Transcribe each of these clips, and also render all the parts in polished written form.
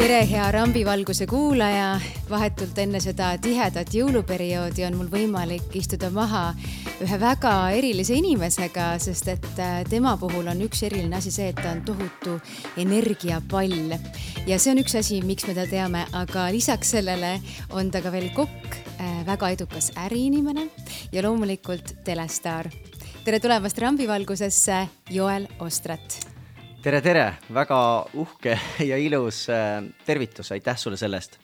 Tere, hea rambivalguse kuulaja! Vahetult enne seda tihedat jõuluperioodi on mul võimalik istuda maha ühe väga erilise inimesega, sest et tema puhul on üks eriline asi see, et ta on tohutu energiapall. Ja see on üks asi, miks me ta teame, aga lisaks sellele on ta ka veel kokk, väga edukas äriinimene ja loomulikult telestaar. Tere tulemast rambivalgusesse, Joel Ostrat! Tere, väga uhke ja ilus tervitus, aitäh sulle sellest.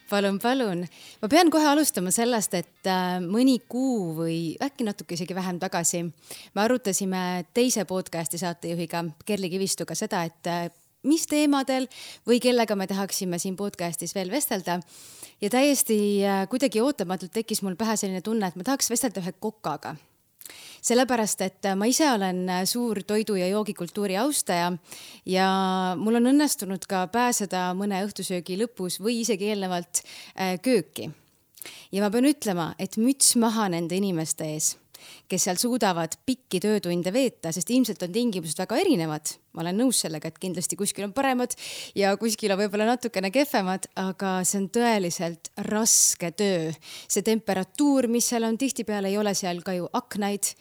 Palun. Ma pean kohe alustama sellest, et mõni kuu või äkki natuke isegi vähem tagasi me arutasime teise podcasti saatejuhiga Kerli Kivistuga seda, et mis teemadel või kellega me tahaksime siin podcastis veel vestelda. Ja täiesti kuidagi ootamatult tekkis mul pähe selline tunne, et ma tahaks vestelda ühe kokaga. Sellepärast, et ma ise olen suur toidu- ja joogikultuuri austaja ja mul on õnnestunud ka pääseda mõne õhtusöögi lõpus või isegi eelnevalt kööki. Ja ma pean ütlema, et müts maha nende inimeste ees, kes seal suudavad pikki töötunde veeta, sest ilmselt on tingimused väga erinevad. Ma olen nõus sellega, et kindlasti kuskil on paremad ja kuskil on võib-olla natukene kehvemad, aga see on tõeliselt raske töö. See temperatuur, mis seal on, tihtipeale ei ole seal ka ju aknaid.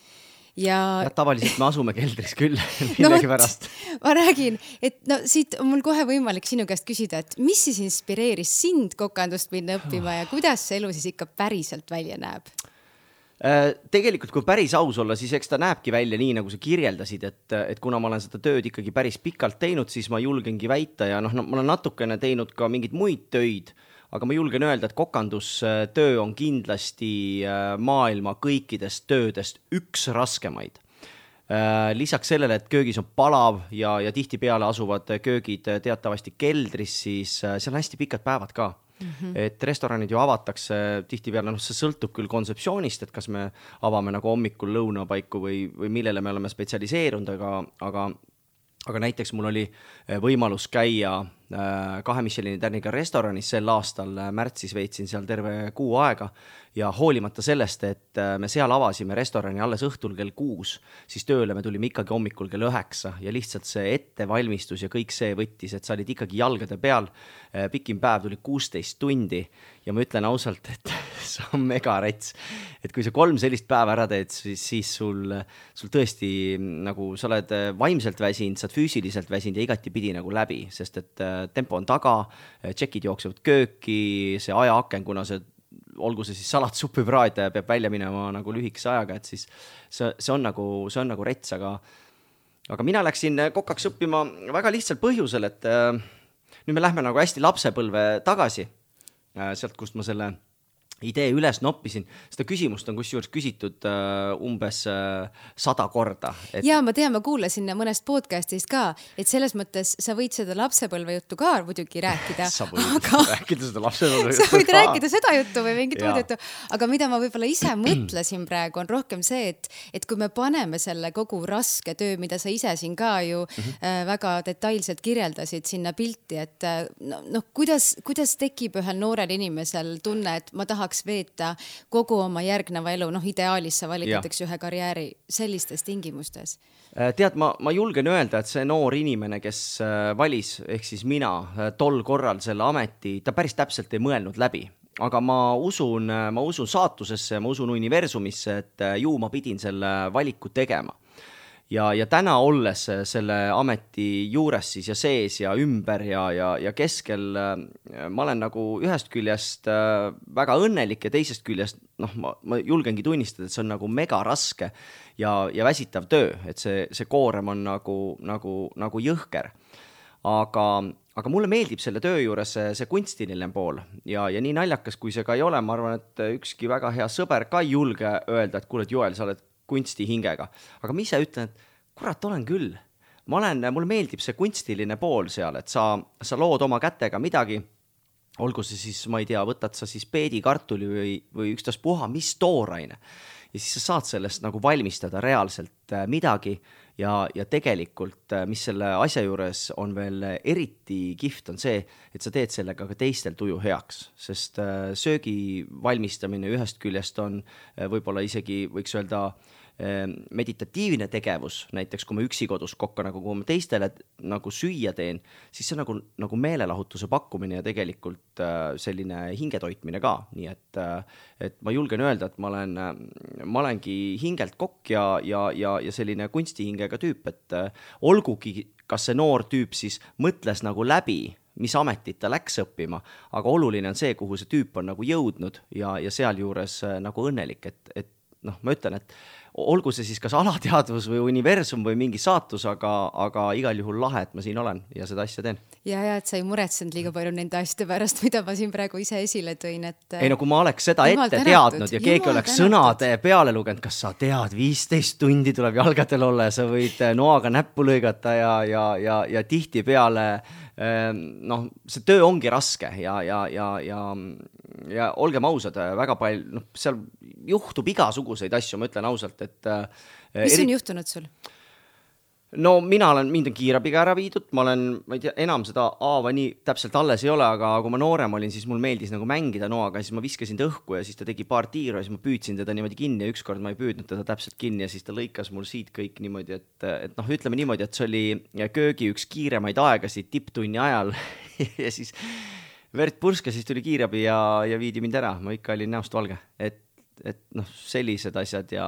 Ja tavaliselt me asume keldris küll millegi pärast. Ma räägin, et siit on mul kohe võimalik sinu käest küsida, et mis siis inspireeris sind kokandust minna õppima ja kuidas see elu siis ikka päriselt välja näeb? Tegelikult, kui päris aus olla, siis eks ta näebki välja nii, nagu sa kirjeldasid, et kuna ma olen seda tööd ikkagi päris pikalt teinud, siis ma julgengi väita ja ma olen natukene teinud ka mingeid muid töid, aga ma julgen öelda, et kokandustöö on kindlasti maailma kõikidest töödest üks raskemaid. Lisaks sellele, et köögis on palav ja tihtipeale asuvad köögid teatavasti keldris, siis seal on hästi pikad päevad ka. Et restoranid ju avatakse tihtipeale, see sõltub küll kontseptsioonist, et kas me avame nagu hommikul lõunapaiku või millele me oleme spetsialiseerunud, aga näiteks mul oli võimalus käia 2 Michelini tärniga restoranis sel aastal, märtsis veetsin seal terve kuu aega ja hoolimata sellest, et me seal avasime restorani alles õhtul kell 6, siis tööle me tulime ikkagi hommikul kell 9 ja lihtsalt see ettevalmistus ja kõik see võttis, et sa olid ikkagi jalgade peal, pikim päev tuli 16 tundi ja ma ütlen ausalt, et see on mega rets, et kui sa 3 sellist päeva ära teed, siis sul tõesti nagu sa oled vaimselt väsinud, sa oled füüsiliselt väsinud ja igati pidi nagu läbi, sest et tempo on taga, tšekid jooksevad kööki, see ajaaken, kuna olgu see siis salatsuppi praad peab välja minema nagu lühikese ajaga, et siis see on nagu rets, aga mina läksin kokaks õppima väga lihtsal põhjusel, et nüüd me lähme nagu hästi lapsepõlve tagasi, sealt kust ma selle idee üles noppisin. Seda küsimust on kusjuures küsitud umbes 100 korda. Ja ma tean, ma kuulasin mõnest podcastist ka, et selles mõttes sa võid seda lapsepõlve juttu ka muidugi rääkida. Sa võid rääkida seda lapsepõlve juttu. Sa võid rääkida seda juttu või mingit muud juttu. Aga mida ma võib-olla ise mõtlesin praegu on rohkem see, et kui me paneme selle kogu raske töö, mida sa ise siin ka ju väga detailselt kirjeldasid sinna pilti, et kuidas tekib ühel noorel inimesel tunne, et ma tahaks veeta kogu oma järgneva elu, ideaalis sa valitatakse ühe karjääri sellistes tingimustes. Tead, ma julgen öelda, et see noor inimene, kes valis, ehk siis mina tol korral selle ameti, ta päris täpselt ei mõelnud läbi. Aga ma usun saatusesse, ma usun universumisse, et ju ma pidin selle valiku tegema. Ja täna olles selle ameti juures siis ja sees ja ümber ja keskel, ma olen nagu ühest küljest väga õnnelik ja teisest küljest, ma julgengi tunnistada, et see on nagu mega raske ja väsitav töö, et see koorem on nagu jõhker. Aga mulle meeldib selle töö juures see kunstiline pool ja nii naljakas, kui see ka ei ole, ma arvan, et ükski väga hea sõber ka ei julge öelda, et kuule, Joel, sa oled kunsti hingega. Aga ma ise ütlen, et kurat, olen küll. Mulle meeldib see kunstiline pool seal, et sa lood oma kätega midagi, olgu see siis, ma ei tea, võtad sa siis peedikartuli või ükstas puha, mis tooraine. Ja siis sa saad sellest nagu valmistada reaalselt midagi ja tegelikult, mis selle asja juures on veel eriti kihvt, on see, et sa teed sellega ka teistel tuju heaks, sest söögi valmistamine ühest küljest on võib-olla isegi, võiks öelda, meditatiivne tegevus, näiteks kui ma üksi kodus kokka, nagu kui ma teistele nagu süüa teen, siis see on nagu meelelahutuse pakkumine ja tegelikult selline hingetoitmine ka, nii et ma julgen öelda, et ma olengi hingelt kokk ja selline kunstihingega tüüp, et olgugi, kas see noor tüüp siis mõtles nagu läbi, mis ametit ta läks õppima, aga oluline on see, kuhu see tüüp on nagu jõudnud ja sealjuures nagu õnnelik, et noh, ma ütlen, et olgu see siis kas alateadvus või universum või mingi saatus, aga igal juhul lahe, et ma siin olen ja seda asja teen. Ja, et sa ei muretsenud liiga palju nende asjade pärast, mida ma siin praegu ise esile tõin, et ei no kui ma oleks seda ette teadnud ja keegi oleks sõnade peale lugenud, kas sa tead, 15 tundi tuleb jalgadel olla ja sa võid noaga näppu lõigata ja tihti peale noh, see töö ongi raske ja olgem ausad, väga palju, noh, seal juhtub igasuguseid asju, ma ütlen ausalt, et mis on juhtunud sul? No mind on kiirabiga ära viidud, ma ei tea, enam seda haava nii täpselt alles ei ole, aga kui ma noorem olin, siis mul meeldis nagu mängida noaga, siis ma viskasin ta õhku ja siis ta tegi paar tiiru ja siis ma püüdsin teda niimoodi kinni ja ükskord ma ei püüdnud teda täpselt kinni ja siis ta lõikas mul siit kõik niimoodi, et noh, ütleme niimoodi, et see oli köögi üks kiiremaid aegasid tipptunni ajal ja siis verd purska, siis tuli kiirabi ja viidi mind ära, ma ikka olin näost valge, et noh, sellised asjad ja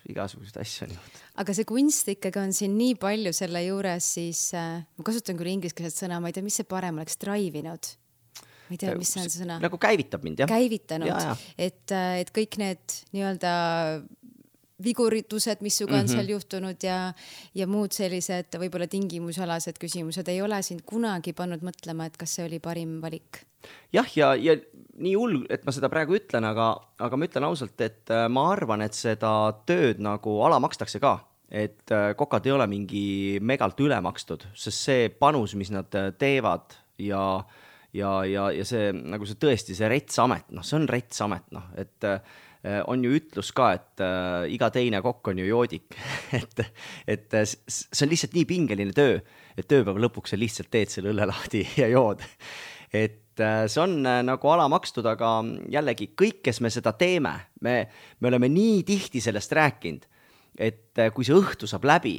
igasuguseid asju on juhtunud. Aga see kunst ikkagi on siin nii palju selle juures, siis ma kasutan küll ingliskeelset sõna, ma ei tea, mis see parem oleks, drive-inud. Ma ei tea, mis see on see sõna. Nagu käivitab mind, jah. Käivitanud, et kõik need nii-öelda viguritused, mis suga on seal juhtunud ja muud sellised võib-olla tingimusalased küsimused ei ole sind kunagi pannud mõtlema, et kas see oli parim valik? Jah, ja nii hull, et ma seda praegu ütlen, aga ma ütlen ausalt, et ma arvan, et seda tööd nagu alamakstakse ka, et kokad ei ole mingi megalt ülemakstud, sest see panus, mis nad teevad ja see, nagu see tõesti, see retsamet, noh, see on retsamet, noh, et on ju ütlus ka, et iga teine kokk on ju joodik, et see on lihtsalt nii pingeline töö, et tööpäeva lõpuks sa lihtsalt teed selle õlle lahti ja jood, et see on nagu alamakstud, aga jällegi kõik, kes me seda teeme, me oleme nii tihti sellest rääkinud, et kui see õhtu saab läbi,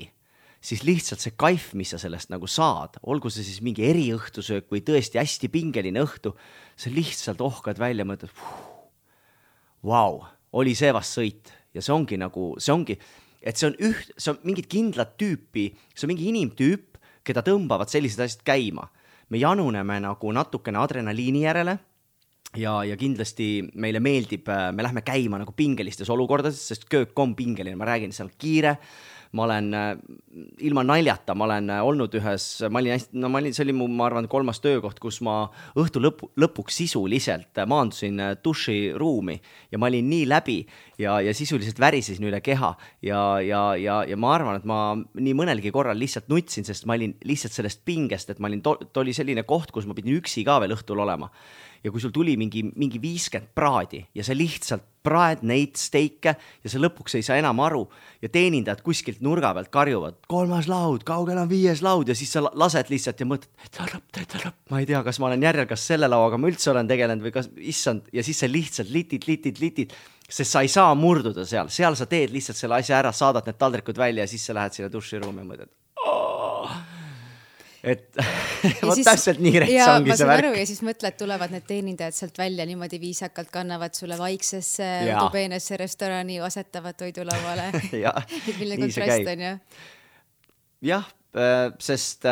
siis lihtsalt see kaif, mis sa sellest nagu saad, olgu see siis mingi eriõhtusöök või tõesti hästi pingeline õhtu, sa lihtsalt ohkad välja ja mõtled, vau, oli see vast sõit ja see ongi, et see on mingid kindlad tüüpi, see on mingi inimtüüp, keda tõmbavad sellised asjad käima. Me januneme nagu natukene adrenaliini järele ja kindlasti meile meeldib, me lähme käima nagu pingelistes olukordades, sest köök on pingeline, ma räägin, seal kiire, ma olen ilma naljata, ma olen olnud ühes, see oli mu, ma arvan, 3. töökoht, kus ma õhtu lõpuks sisuliselt maandusin duširuumi ja ma olin nii läbi ja sisuliselt värisesin üle keha ja ma arvan, et ma nii mõnelgi korral lihtsalt nutsin, sest ma olin lihtsalt sellest pingest, et ma olin, oli selline koht, kus ma pidin üksi ka veel õhtul olema. Ja kui sul tuli mingi 50 praadi ja sa lihtsalt praed neid steike ja sa lõpuks ei saa enam aru ja teenindajad kuskilt nurga pealt karjuvad, 3. laud, kaugel on 5. laud ja siis sa lased lihtsalt ja mõtled, ma ei tea, kas ma olen järjel, kas selle lauaga ma üldse olen tegelenud või kas issand ja siis sa lihtsalt litid, sest sa ei saa murduda seal sa teed lihtsalt selle asja ära, saadad need taldrikud välja ja siis sa lähed sinna duširuumi ja mõtled, et vot täpselt nii rets ongi see värk. Ja siis mõtled, tulevad need teenindajad sealt välja, niimoodi viisakalt kannavad sulle vaiksesse tubeenesse restorani, asetavad toidulauale. Milline kontrast on, jah? Jah, sest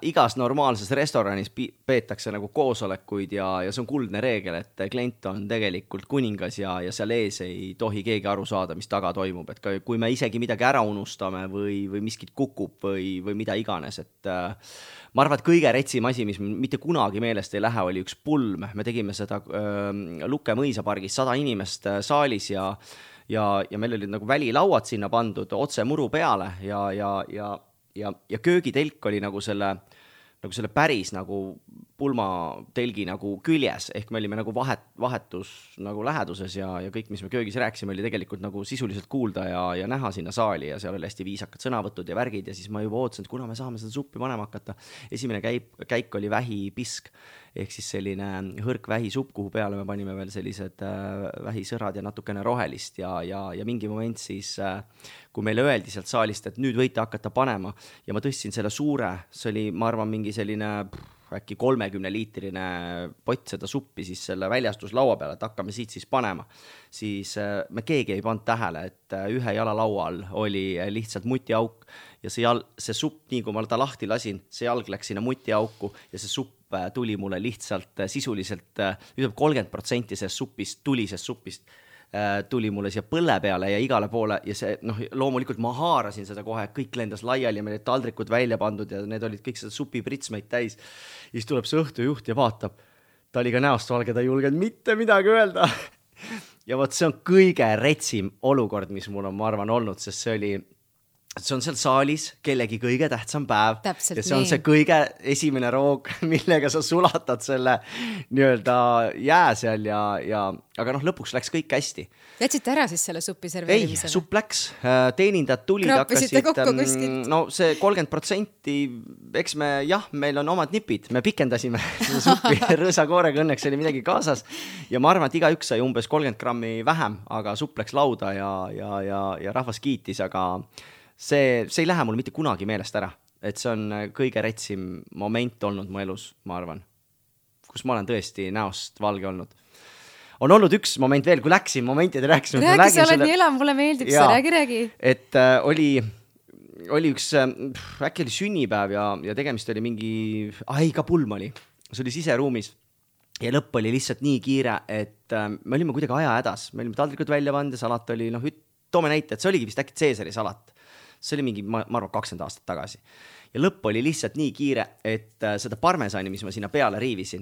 igas normaalses restoranis peetakse nagu koosolekuid ja see on kuldne reegel, et klient on tegelikult kuningas ja seal ees ei tohi keegi aru saada, mis taga toimub, et kui me isegi midagi ära unustame või miskit kukub või mida iganes, et ma arvan, et kõige retsim asi, mis mitte kunagi meelest ei lähe, oli üks pulm. Me tegime seda Lukke mõisapargis 100 inimest saalis ja meil olid nagu välilauad sinna pandud otse muru peale ja köögitelk oli nagu selle päris nagu pulmatelgi nagu küljes, ehk me olime nagu vahetus nagu läheduses ja kõik, mis me köögis rääkisime, oli tegelikult nagu sisuliselt kuulda ja näha sinna saali ja seal oli hästi viisakad sõnavõtud ja värgid ja siis ma juba ootasin, et kuna me saame seda suppi panema hakata. Esimene käik oli vähipisk, ehk siis selline hõrk vähisupp, kuhu peale me panime veel sellised vähisõrad ja natukene rohelist ja mingi moment siis, kui meile öeldi sealt saalist, et nüüd võite hakata panema ja ma tõstsin selle suure, see oli, ma arvan, mingi selline äkki 30-liitrine pott seda suppi siis selle väljastuslaua peale, et hakkame siit siis panema. Siis me keegi ei pannud tähele, et ühe jala laual oli lihtsalt mutiauk ja see supp, nii kui ma ta lahti lasin, see jalg läks sinna mutiauku ja see supp tuli mulle lihtsalt sisuliselt, 30% sellest tulisest suppist tuli mulle siia põlle peale ja igale poole ja see, loomulikult ma haarasin seda kohe, kõik lendas laiali ja meil olid taldrikud välja pandud ja need olid kõik seda supipritsmeid täis. Ja siis tuleb see õhtujuht ja vaatab, ta oli ka näost valge, ta ei julgenud mitte midagi öelda. Ja võt, see on kõige retsim olukord, mis mul on, ma arvan, olnud, sest see on seal saalis kellegi kõige tähtsam päev. Täpselt ja see on see kõige esimene roog, millega sa sulatad selle nii-öelda jää seal aga lõpuks läks kõik hästi. Jätsite ära siis selle suppi serveerimisele? Ei, supp läks, teenindajad tulid, hakkasid kokku kuskilt? No see 30%, eks meil on omad nipid, me pikendasime seda suppi rõõsakoorega, õnneks oli midagi kaasas ja ma arvan, et igaüks sai umbes 30 grammi vähem, aga supp läks lauda ja rahvas kiitis, aga see ei lähe mul mitte kunagi meelest ära, et see on kõige retsim moment olnud mu elus, ma arvan, kus ma olen tõesti näost valge olnud. On olnud üks moment veel, kui läksin momentide rääkisime. Räägi, sa oled nii elam, mulle meeldib see, räägi. Et oli üks, äkki oli sünnipäev ja tegemist oli mingi, ka pulm oli, see oli siseruumis ja lõpp oli lihtsalt nii kiire, et me olime kuidagi aja hädas, me olime taldrikud välja pannud ja salat oli, toome näite, et see oligi vist äkki Caesari salat. See oli mingi, ma arvan, 20 aastat tagasi. Ja lõpp oli lihtsalt nii kiire, et seda parmesani, mis ma sinna peale riivisin,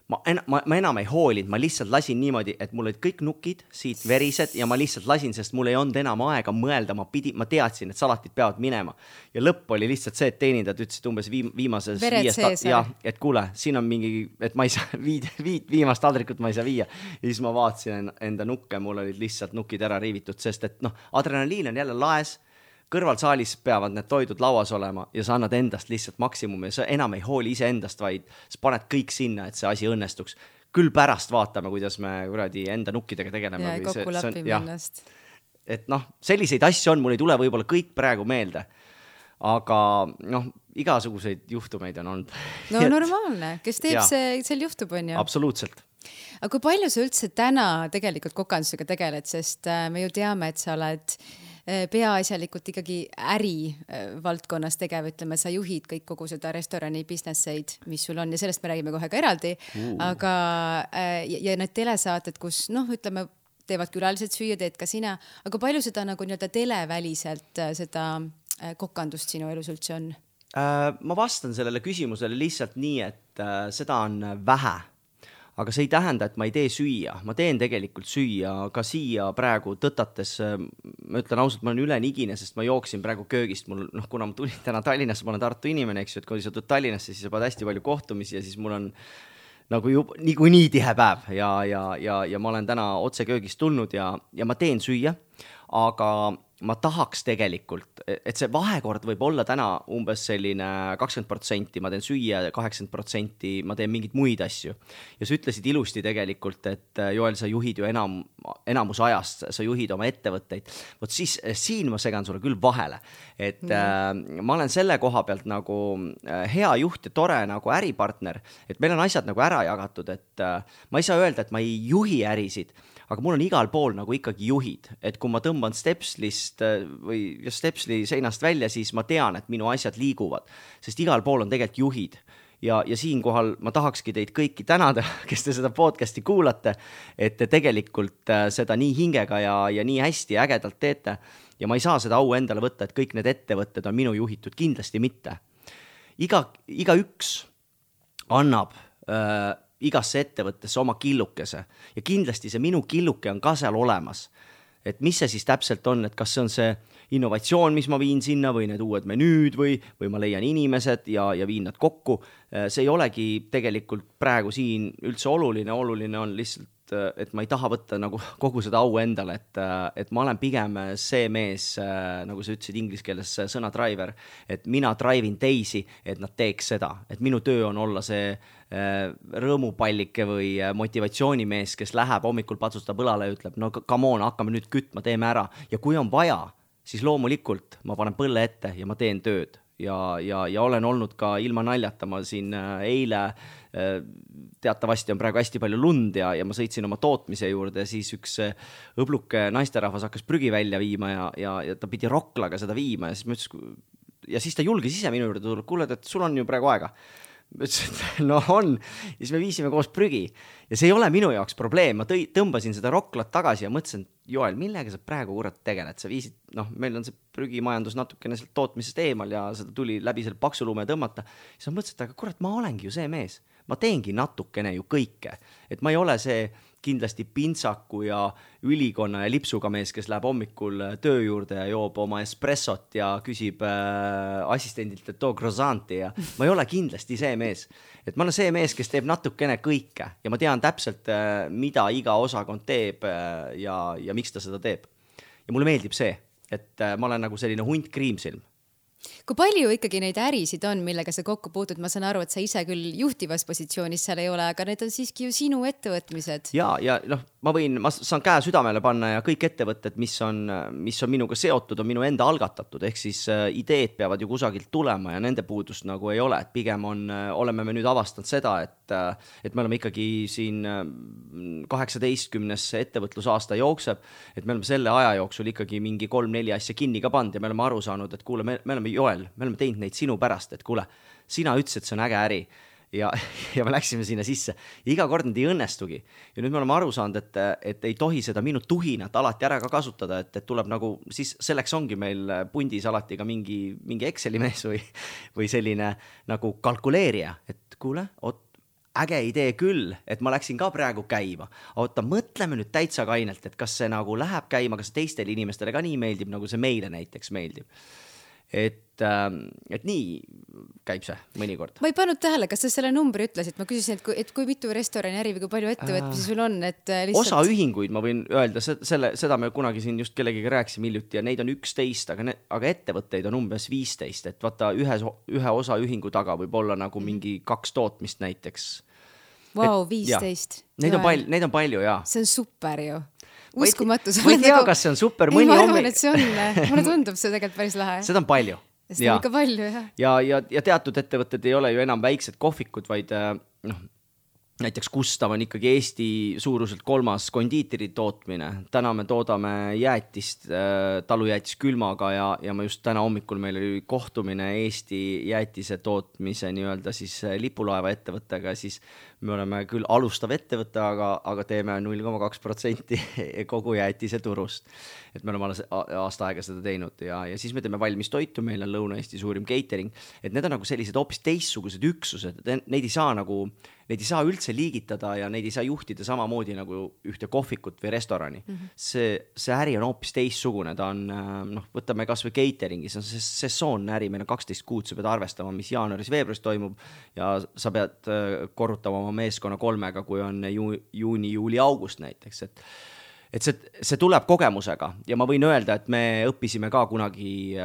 ma enam ei hoolinud, ma lihtsalt lasin niimoodi, et mul olid kõik nukid siit verised ja ma lihtsalt lasin, sest mul ei olnud enam aega mõelda, ma teadsin, et salatid peavad minema. Ja lõpp oli lihtsalt see, et teenindajad ütlesid umbes viimases et kuule, siin on mingi, et ma ei saa viimast taldrikut ma ei saa viia. Ja siis ma vaatasin enda nukke, mul olid lihtsalt nukid ära riivitud, sest et adrenaliin on jälle laes, kõrvalsaalis peavad need toidud lauas olema ja sa annad endast lihtsalt maksimumi ja sa enam ei hooli ise endast, vaid sa paned kõik sinna, et see asi õnnestuks. Küll pärast vaatame, kuidas me enda nukkidega tegeleme. Ja kokku lapime ennast. Et selliseid asju on, mul ei tule võib-olla kõik praegu meelde, aga igasuguseid juhtumeid on olnud. No normaalne, kes teeb seal juhtub, on ju? Absoluutselt. Aga kui palju sa üldse täna tegelikult kokandusega tegeled, sest me ju teame, et sa oled peaasjalikult ikkagi äri valdkonnas tegev, ütleme, sa juhid kõik kogu seda restorani businesseid, mis sul on ja sellest me räägime kohe ka eraldi, aga ja need telesaated, kus ütleme, teevad külalised süüa, teed ka sina, aga palju seda nagu nii-öelda televäliselt seda kokandust sinu elus üldse on? Ma vastan sellele küsimusele lihtsalt nii, et seda on vähe. Aga see ei tähenda, et ma ei tee süüa. Ma teen tegelikult süüa ka siia praegu tõtates. Ma ütlen ausalt, ma olen ülenigine, sest ma jooksin praegu köögist. Kuna ma tulin täna Tallinnasse, ma olen Tartu inimene, eks ju, et kui sa tuled Tallinnasse, siis sa pead hästi palju kohtumisi ja siis mul on nagu nii tihe päev ja ma olen täna otse köögist tulnud ja ma teen süüa, aga ma tahaks tegelikult, et see vahekord võib olla täna umbes selline 20%, ma teen süüa, 80% ma teen mingeid muid asju. Ja sa ütlesid ilusti tegelikult, et Joel, sa juhid ju enamus ajast, sa juhid oma ettevõtteid. Vot siis siin ma segan sulle küll vahele, et ma olen selle koha pealt nagu hea juht ja tore nagu äripartner, et meil on asjad nagu ära jagatud, et ma ei saa öelda, et ma ei juhi ärisid, aga mul on igal pool nagu ikkagi juhid, et kui ma tõmban Stepslist või Stepsli seinast välja, siis ma tean, et minu asjad liiguvad, sest igal pool on tegelikult juhid. Ja siinkohal ma tahakski teid kõiki tänada, kes te seda podcasti kuulate, et te tegelikult seda nii hingega ja nii hästi ja ägedalt teete. Ja ma ei saa seda au endale võtta, et kõik need ettevõtted on minu juhitud, kindlasti mitte. Igaüks annab igasse ettevõttesse oma killukese ja kindlasti see minu killuke on ka seal olemas. et mis see siis täpselt on, et kas see on see innovatsioon, mis ma viin sinna või need uued menüüd või ma leian inimesed ja viin nad kokku. See ei olegi tegelikult praegu siin üldse oluline on lihtsalt, et ma ei taha võtta nagu kogu seda au endale, et ma olen pigem see mees, nagu sa ütlesid inglise keeles sõna driver, et mina drive'in teisi, et nad teeks seda, et minu töö on olla see rõõmupallike või motivatsioonimees, kes läheb hommikul patsustab õlale ja ütleb, no come on, hakkame nüüd kütma, teeme ära ja kui on vaja, siis loomulikult ma panen põlle ette ja ma teen tööd ja olen olnud ka ilma naljata, ma siin eile teatavasti on praegu hästi palju lund ja ma sõitsin oma tootmise juurde ja siis üks õbluke naisterahvas hakkas prügi välja viima ja ta pidi roklaga seda viima ja siis ma ütlesin, ja siis ta julges ise minu juurde tulla, kuule, et sul on ju praegu aega. Ma ütlesin, et no on, ja siis me viisime koos prügi ja see ei ole minu jaoks probleem, ma tõmbasin seda roklat tagasi ja mõtlesin, Joel, millega sa praegu kurat tegeled, sa viisid, meil on see prügimajandus natukene sealt tootmisest eemal ja seda tuli läbi selle paksulume tõmmata, siis ma mõtlesin, et aga kurat, ma olengi ju see mees, ma teengi natukene ju kõike, et ma ei ole see kindlasti pintsaku ja ülikonna ja lipsuga mees, kes läheb hommikul töö juurde ja joob oma espressot ja küsib assistendilt, et too croissanti ja ma ei ole kindlasti see mees. Et ma olen see mees, kes teeb natukene kõike ja ma tean täpselt, mida iga osakond teeb ja miks ta seda teeb. Ja mulle meeldib see, et ma olen nagu selline hunt kriimsilm. Kui palju ikkagi neid ärisid on, millega sa kokku puutud? Ma saan aru, et sa ise küll juhtivas positsioonis seal ei ole, aga need on siiski ju sinu ettevõtmised. Ja ma saan käe südamele panna ja kõik ettevõtted, mis on minuga seotud, on minu enda algatatud, ehk siis ideed peavad ju kusagilt tulema ja nende puudust nagu ei ole, et pigem oleme me nüüd avastanud seda, et me oleme ikkagi siin 18. ettevõtlusaasta jookseb, et me oleme selle aja jooksul ikkagi mingi 3-4 asja kinni ka pand ja me oleme aru saanud, et kuule, me oleme Joel, me oleme teinud neid sinu pärast, et kuule, sina ütlesid, et see on äge äri ja me läksime sinna sisse ja iga kord need ei õnnestugi ja nüüd me oleme aru saanud, et ei tohi seda minu tuhinat alati ära ka kasutada, et tuleb nagu, siis selleks ongi meil pundis alati ka mingi Exceli mees või selline nagu kalkuleerija, et kuule, äge idee küll, et ma läksin ka praegu käima, oota, mõtleme nüüd täitsa kainelt, et kas see nagu läheb käima, kas teistele inimestele ka nii meeldib, nagu see meile näiteks meeldib. Et nii käib see mõnikord. Ma ei pannud tähele, kas sa selle numbri ütlesid? Ma küsisin, et kui mitu restorani äri või kui palju ettevõtmisi sul on? Lihtsalt... Osa ühinguid ma võin öelda, seda me kunagi siin just kellegiga rääkisime hiljuti ja neid on 11, aga ettevõtteid on umbes 15, et vaata ühe osa ühingu taga võib olla nagu mingi 2 tootmist näiteks. Vau, 15. Neid on palju, jaa. See on super ju. Uskumatu. Ma ei tea, kas see on super. Ma arvan, et see on. Mulle tundub see tegelikult päris lahe. Seda on palju. Seda on ikka palju, jah. Ja teatud ettevõtted ei ole ju enam väiksed kohvikud, vaid näiteks Gustav on ikkagi Eesti suuruselt 3. kondiiteri tootmine. Täna me toodame jäätist, talujäätis külmaga ja ma just täna hommikul meil oli kohtumine Eesti jäätise tootmise nii-öelda siis lipulaeva ettevõttega, siis me oleme küll alustav ettevõte, aga teeme 0,2% kogu jäätise turust. Et me oleme aasta aega seda teinud ja siis me teeme valmis toitu, meil on Lõuna-Eesti suurim catering, et need on nagu sellised hoopis teistsugused üksused, neid ei saa üldse liigitada ja neid ei saa juhtida samamoodi nagu ühte kohvikut või restorani. See äri on hoopis teistsugune, ta on, võtame kas või cateringi, see on sesoonne äri, meil on 12 kuud, sa pead arvestama, mis jaanuaris-veebruaris toimub ja sa pead korrutama oma meeskonna 3, kui on juuni, juuli, august näiteks, et see tuleb kogemusega ja ma võin öelda, et me õppisime ka kunagi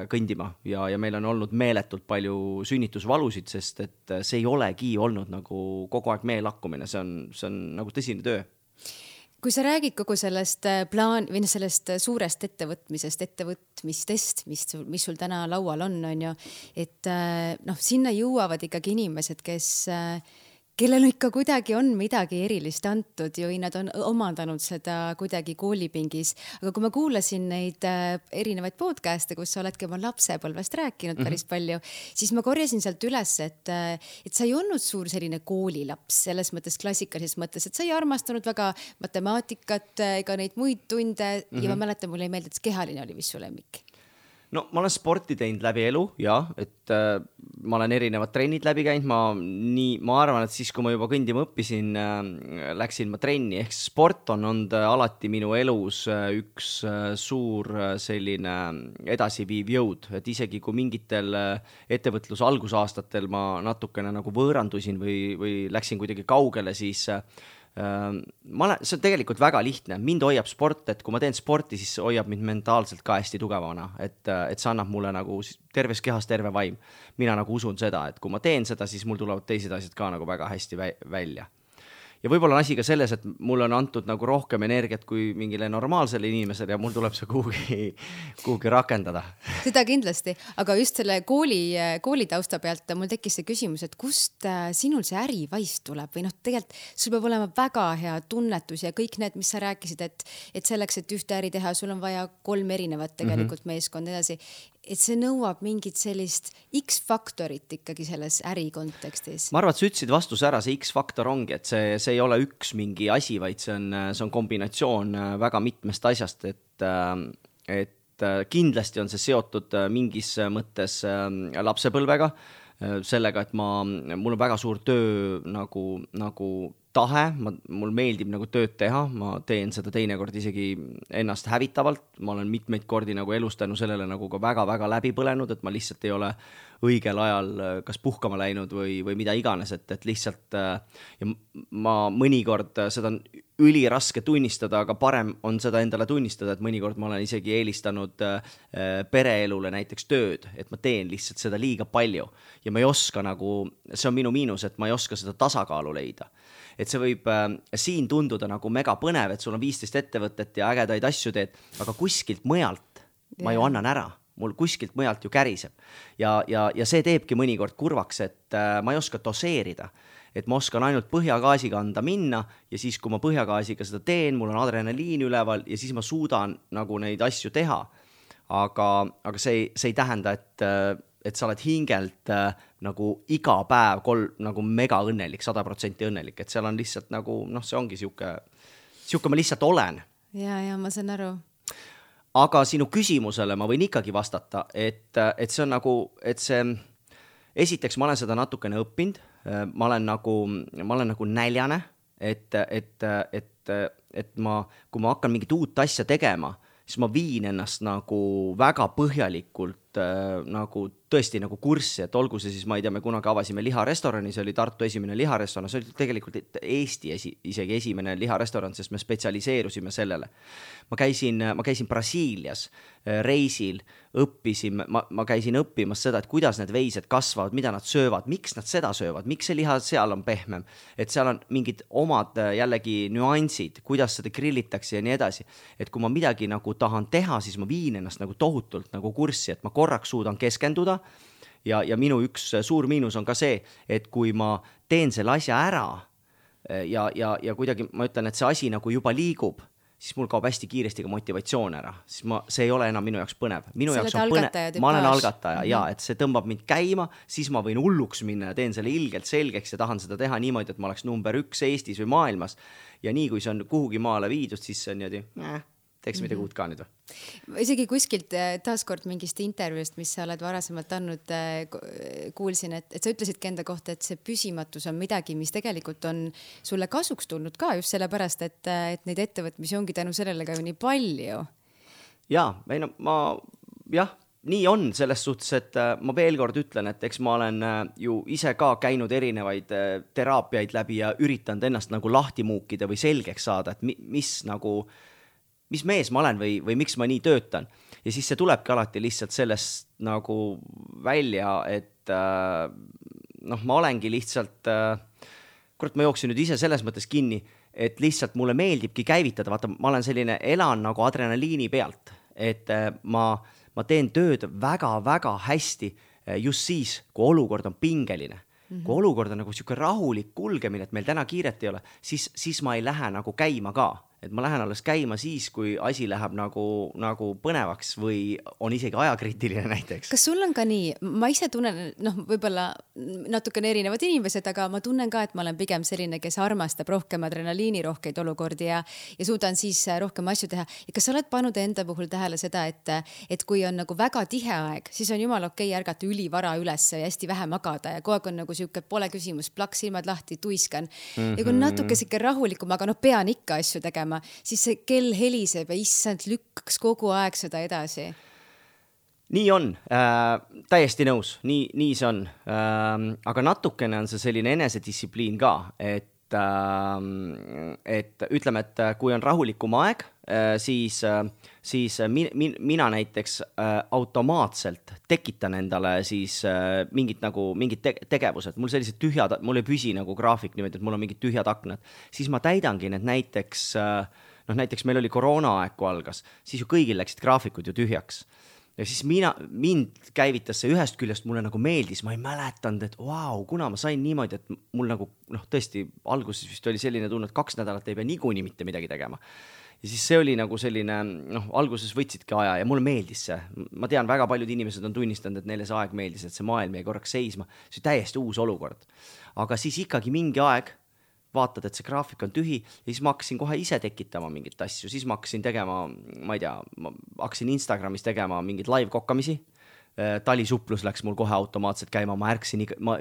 kõndima ja meil on olnud meeletult palju sünnitusvalusid, sest et see ei olegi olnud nagu kogu aeg meelakkumine, see on nagu tõsine töö. Kui sa räägid kogu sellest sellest suurest ettevõtmistest, mis sul täna laual on ju, et sinna jõuavad ikkagi inimesed, kellel ikka kuidagi on midagi erilist antud ju, nad on omandanud seda kuidagi koolipingis. Aga kui ma kuulasin neid erinevaid podcast'e, kus sa oledki oma lapsepõlvest rääkinud päris palju, siis ma korjasin sealt üles, et sa ei olnud suur selline koolilaps selles mõttes klassikalises mõttes, et sa ei armastanud väga matemaatikat ega neid muid tunde ja ma mäletan, mulle ei meeldi, et kehaline oli, mis su lemmik. no ma olen sporti teinud läbi elu ja, et ma olen erinevad trennid läbi käinud, ma arvan, et siis, kui ma juba kõndima õppisin, läksin ma trenni, ehk sport on olnud alati minu elus üks suur selline edasiviiv jõud, et isegi kui mingitel ettevõtluse algusaastatel ma natukene nagu võõrandusin või läksin kuidagi kaugele, siis see on tegelikult väga lihtne, mind hoiab sport, et kui ma teen sporti, siis hoiab mind mentaalselt ka hästi tugevana, et see annab mulle nagu terves kehas terve vaim. Mina nagu usun seda, et kui ma teen seda, siis mul tulevad teised asjad ka nagu väga hästi välja. Ja võib-olla on asi ka selles, et mul on antud nagu rohkem energiat kui mingile normaalsele inimesele ja mul tuleb see kuhugi rakendada. Seda kindlasti, aga just selle kooli tausta pealt mul tekkis see küsimus, et kust sinul see ärivaist tuleb või tegelikult sul peab olema väga hea tunnetus ja kõik need, mis sa rääkisid, et selleks, et ühte äri teha, sul on vaja 3 erinevat tegelikult meeskond edasi. Et see nõuab mingit sellist X-faktorit ikkagi selles äri kontekstis. Ma arvan, et sa ütlesid vastuse ära, see X-faktor ongi, et see ei ole üks mingi asi, vaid see on kombinatsioon väga mitmest asjast, et kindlasti on see seotud mingis mõttes lapsepõlvega, sellega, et mul on väga suur töö nagu tahe, mul meeldib nagu tööd teha, ma teen seda teinekord isegi ennast hävitavalt, ma olen mitmeid kordi nagu elus tänu sellele nagu ka väga-väga läbi põlenud, et ma lihtsalt ei ole õigel ajal kas puhkama läinud või mida iganes, et lihtsalt ja ma mõnikord seda on üliraske tunnistada, aga parem on seda endale tunnistada, et mõnikord ma olen isegi eelistanud pereelule näiteks tööd, et ma teen lihtsalt seda liiga palju ja ma ei oska nagu, see on minu miinus, et ma ei oska seda tasakaalu leida. Et see võib siin tunduda nagu mega põnev, et sul on 15 ettevõtet ja ägedaid asju teed, aga kuskilt mujalt ma ju annan ära. Mul kuskilt mujalt ju käriseb. Ja see teebki mõnikord kurvaks, et ma ei oska doseerida. Et ma oskan ainult põhjagaasiga anda minna ja siis, kui ma põhjagaasiga seda teen, mul on adrenaliin üleval ja siis ma suudan nagu neid asju teha. Aga see ei tähenda, et sa oled hingelt nagu iga päev nagu mega õnnelik, 100% õnnelik, et seal on lihtsalt nagu, see ongi siuke ma lihtsalt olen. Ja ma saan aru. Aga sinu küsimusele ma võin ikkagi vastata, et see on nagu, esiteks ma olen seda natukene õppinud, ma olen nagu näljane, et kui ma hakkan mingit uut asja tegema, siis ma viin ennast nagu väga põhjalikult nagu tõesti nagu kurssi, et olgu see siis, ma ei tea, me kunagi avasime liharestorani, see oli Tartu esimene liharestoran, see oli tegelikult Eesti isegi esimene liharestoran, sest me spetsialiseerusime sellele. Ma käisin Brasiilias reisil, õppisin, ma käisin õppimas seda, et kuidas need veised kasvavad, mida nad söövad, miks nad seda söövad, miks see liha seal on pehmem, et seal on mingid omad jällegi nüansid, kuidas seda grillitakse ja nii edasi. Et kui ma midagi nagu tahan teha, siis ma viin ennast nagu tohutult nagu kurssi, et ma korraks suudan keskenduda ja minu üks suur miinus on ka see, et kui ma teen selle asja ära ja kuidagi ma ütlen, et see asi nagu juba liigub, siis mul kaob hästi kiiresti ka motivatsioon ära, siis see ei ole enam minu jaoks põnev. Minu jaoks on põnev, ma olen algataja ja et see tõmbab mind käima, siis ma võin hulluks minna ja teen selle ilgelt selgeks ja tahan seda teha niimoodi, et ma oleks number 1 Eestis või maailmas ja nii kui see on kuhugi maale viidud, siis see on niimoodi, teeks midagi uut ka nüüd või? Isegi kuskilt taaskord mingist intervjuust, mis sa oled varasemalt andnud, kuulsin, et sa ütlesidki enda kohta, et see püsimatus on midagi, mis tegelikult on sulle kasuks tulnud ka just sellepärast, et neid ettevõtmisi ongi tänu sellele ka ju nii palju. Nii on selles suhtes, et ma veel kord ütlen, et eks ma olen ju ise ka käinud erinevaid teraapiaid läbi ja üritanud ennast nagu lahti muukida või selgeks saada, et mis mees ma olen või miks ma nii töötan. Ja siis see tulebki alati lihtsalt sellest nagu välja, et ma olengi lihtsalt, ma jooksin nüüd ise selles mõttes kinni, et lihtsalt mulle meeldibki käivitada, vaata, ma olen selline, elan nagu adrenaliini pealt, et ma teen tööd väga-väga hästi just siis, kui olukord on pingeline. Kui olukord on nagu siuke rahulik kulgemine, et meil täna kiiret ei ole, siis ma ei lähe nagu käima ka. et ma lähen alles käima siis, kui asi läheb nagu põnevaks või on isegi ajakriitiline näiteks. Kas sul on ka nii, ma ise tunnen, võib-olla natukene erinevad inimesed, aga ma tunnen ka, et ma olen pigem selline, kes armastab rohkem adrenaliini rohkeid olukordi ja suudan siis rohkem asju teha. Ja kas sa oled pannud enda puhul tähele seda, et kui on nagu väga tihe aeg, siis on jumal okei ärgata ülivara üles ja hästi vähe magada ja kogu aeg on nagu siuke pole küsimus, plaks silmad lahti, tuiskan. Ja kui natuke siuke rahulikum, aga pean ikka asju tegema, siis see kell heliseb ja issand lükkaks kogu aeg seda edasi. Nii on, täiesti nõus, nii see on. Aga natukene on see selline enesedistsipliin ka, et ütleme, et kui on rahulikum aeg, siis mina näiteks automaatselt tekitan endale siis mingid tegevused. Mul sellised tühjad, mul ei püsi nagu graafik niimoodi, et mul on mingid tühjad aknad. Siis ma täidangi need näiteks meil oli koroonaaeg, kui algas, siis ju kõigil läksid graafikud ju tühjaks. Ja siis mind käivitas see ühest küljest, mulle nagu meeldis, ma ei mäletanud, et kuna ma sain niimoodi, et mul nagu, tõesti, alguses vist oli selline tunne, et 2 nädalat ei pea niikuinii mitte midagi tegema. Ja siis see oli nagu selline, alguses võtsidki aja ja mulle meeldis see. Ma tean, väga paljud inimesed on tunnistanud, et neile see aeg meeldis, et see maailm jäi korraks seisma. See täiesti uus olukord. Aga siis ikkagi mingi aeg vaatad, et see graafik on tühi ja siis ma hakkasin kohe ise tekitama mingit asju. Siis ma hakkasin tegema, ma ei tea, ma hakkasin Instagramis tegema mingid live kokkamisi. Talisuplus läks mul kohe automaatselt käima, ma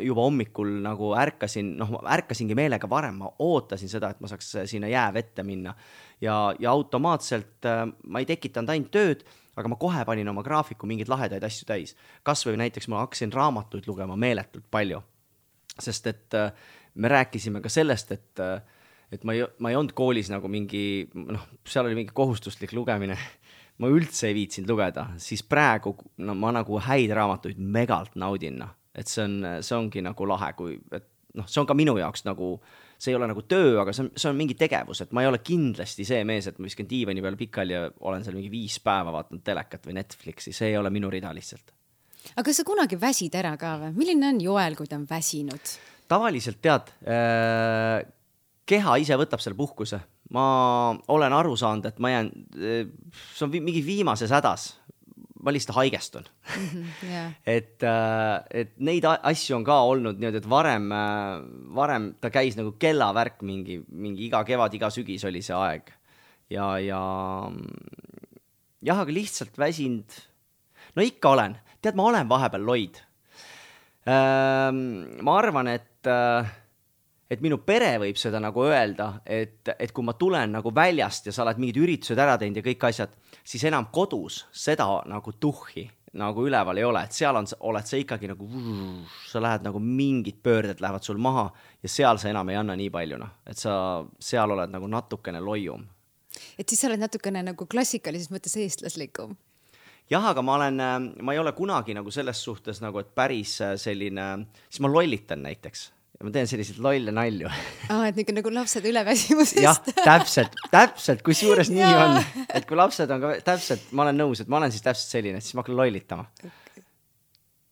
juba hommikul nagu ärkasingi meelega varem, ma ootasin seda, et ma saaks sinna jäävette minna ja automaatselt ma ei tekitanud ainult tööd, aga ma kohe panin oma graafiku mingeid lahedaid asju täis. Kas või näiteks ma hakkasin raamatuid lugema meeletult palju, sest et me rääkisime ka sellest, et ma ei olnud koolis nagu mingi, seal oli mingi kohustuslik lugemine. Ma üldse ei viitsinud lugeda, siis praegu ma nagu häid raamatuid megalt naudin, et see ongi nagu lahe, see on ka minu jaoks nagu, see ei ole nagu töö, aga see on mingi tegevus, et ma ei ole kindlasti see mees, et ma viskan diivani peale pikali ja olen seal mingi 5 päeva vaatanud telekat või Netflixi, see ei ole minu rida lihtsalt. Aga kas sa kunagi väsid ära ka või? Milline on Joel, kui ta on väsinud? Tavaliselt tead, keha ise võtab selle puhkuse. Ma olen aru saanud, et ma jään, see on mingi viimases hädas, ma lihtsalt haigestun. Yeah. et neid asju on ka olnud niimoodi, et varem ta käis nagu kellavärk mingi iga kevad, iga sügis oli see aeg. Ja aga lihtsalt väsinud, ikka olen. Tead, ma olen vahepeal loid. Ma arvan, et minu pere võib seda nagu öelda, et kui ma tulen nagu väljast ja sa oled mingid üritused ära teinud ja kõik asjad, siis enam kodus seda nagu tuhhi nagu üleval ei ole, et seal oled sa ikkagi nagu, sa lähed nagu mingid pöörded lähevad sul maha ja seal sa enam ei anna nii paljuna, et sa seal oled nagu natukene loium. Et siis sa oled natukene nagu klassikalises mõttes eestlaslikum. Jah, aga ma ei ole kunagi nagu selles suhtes nagu, et päris selline, siis ma lollitan näiteks. Ja ma teen selliseid lolle nalju. Et nagu lapsed üleväsimusest. Jah, täpselt, kui suures nii on. Et kui lapsed on ka täpselt, ma olen nõus, et ma olen siis täpselt selline, siis ma hakkan lollitama.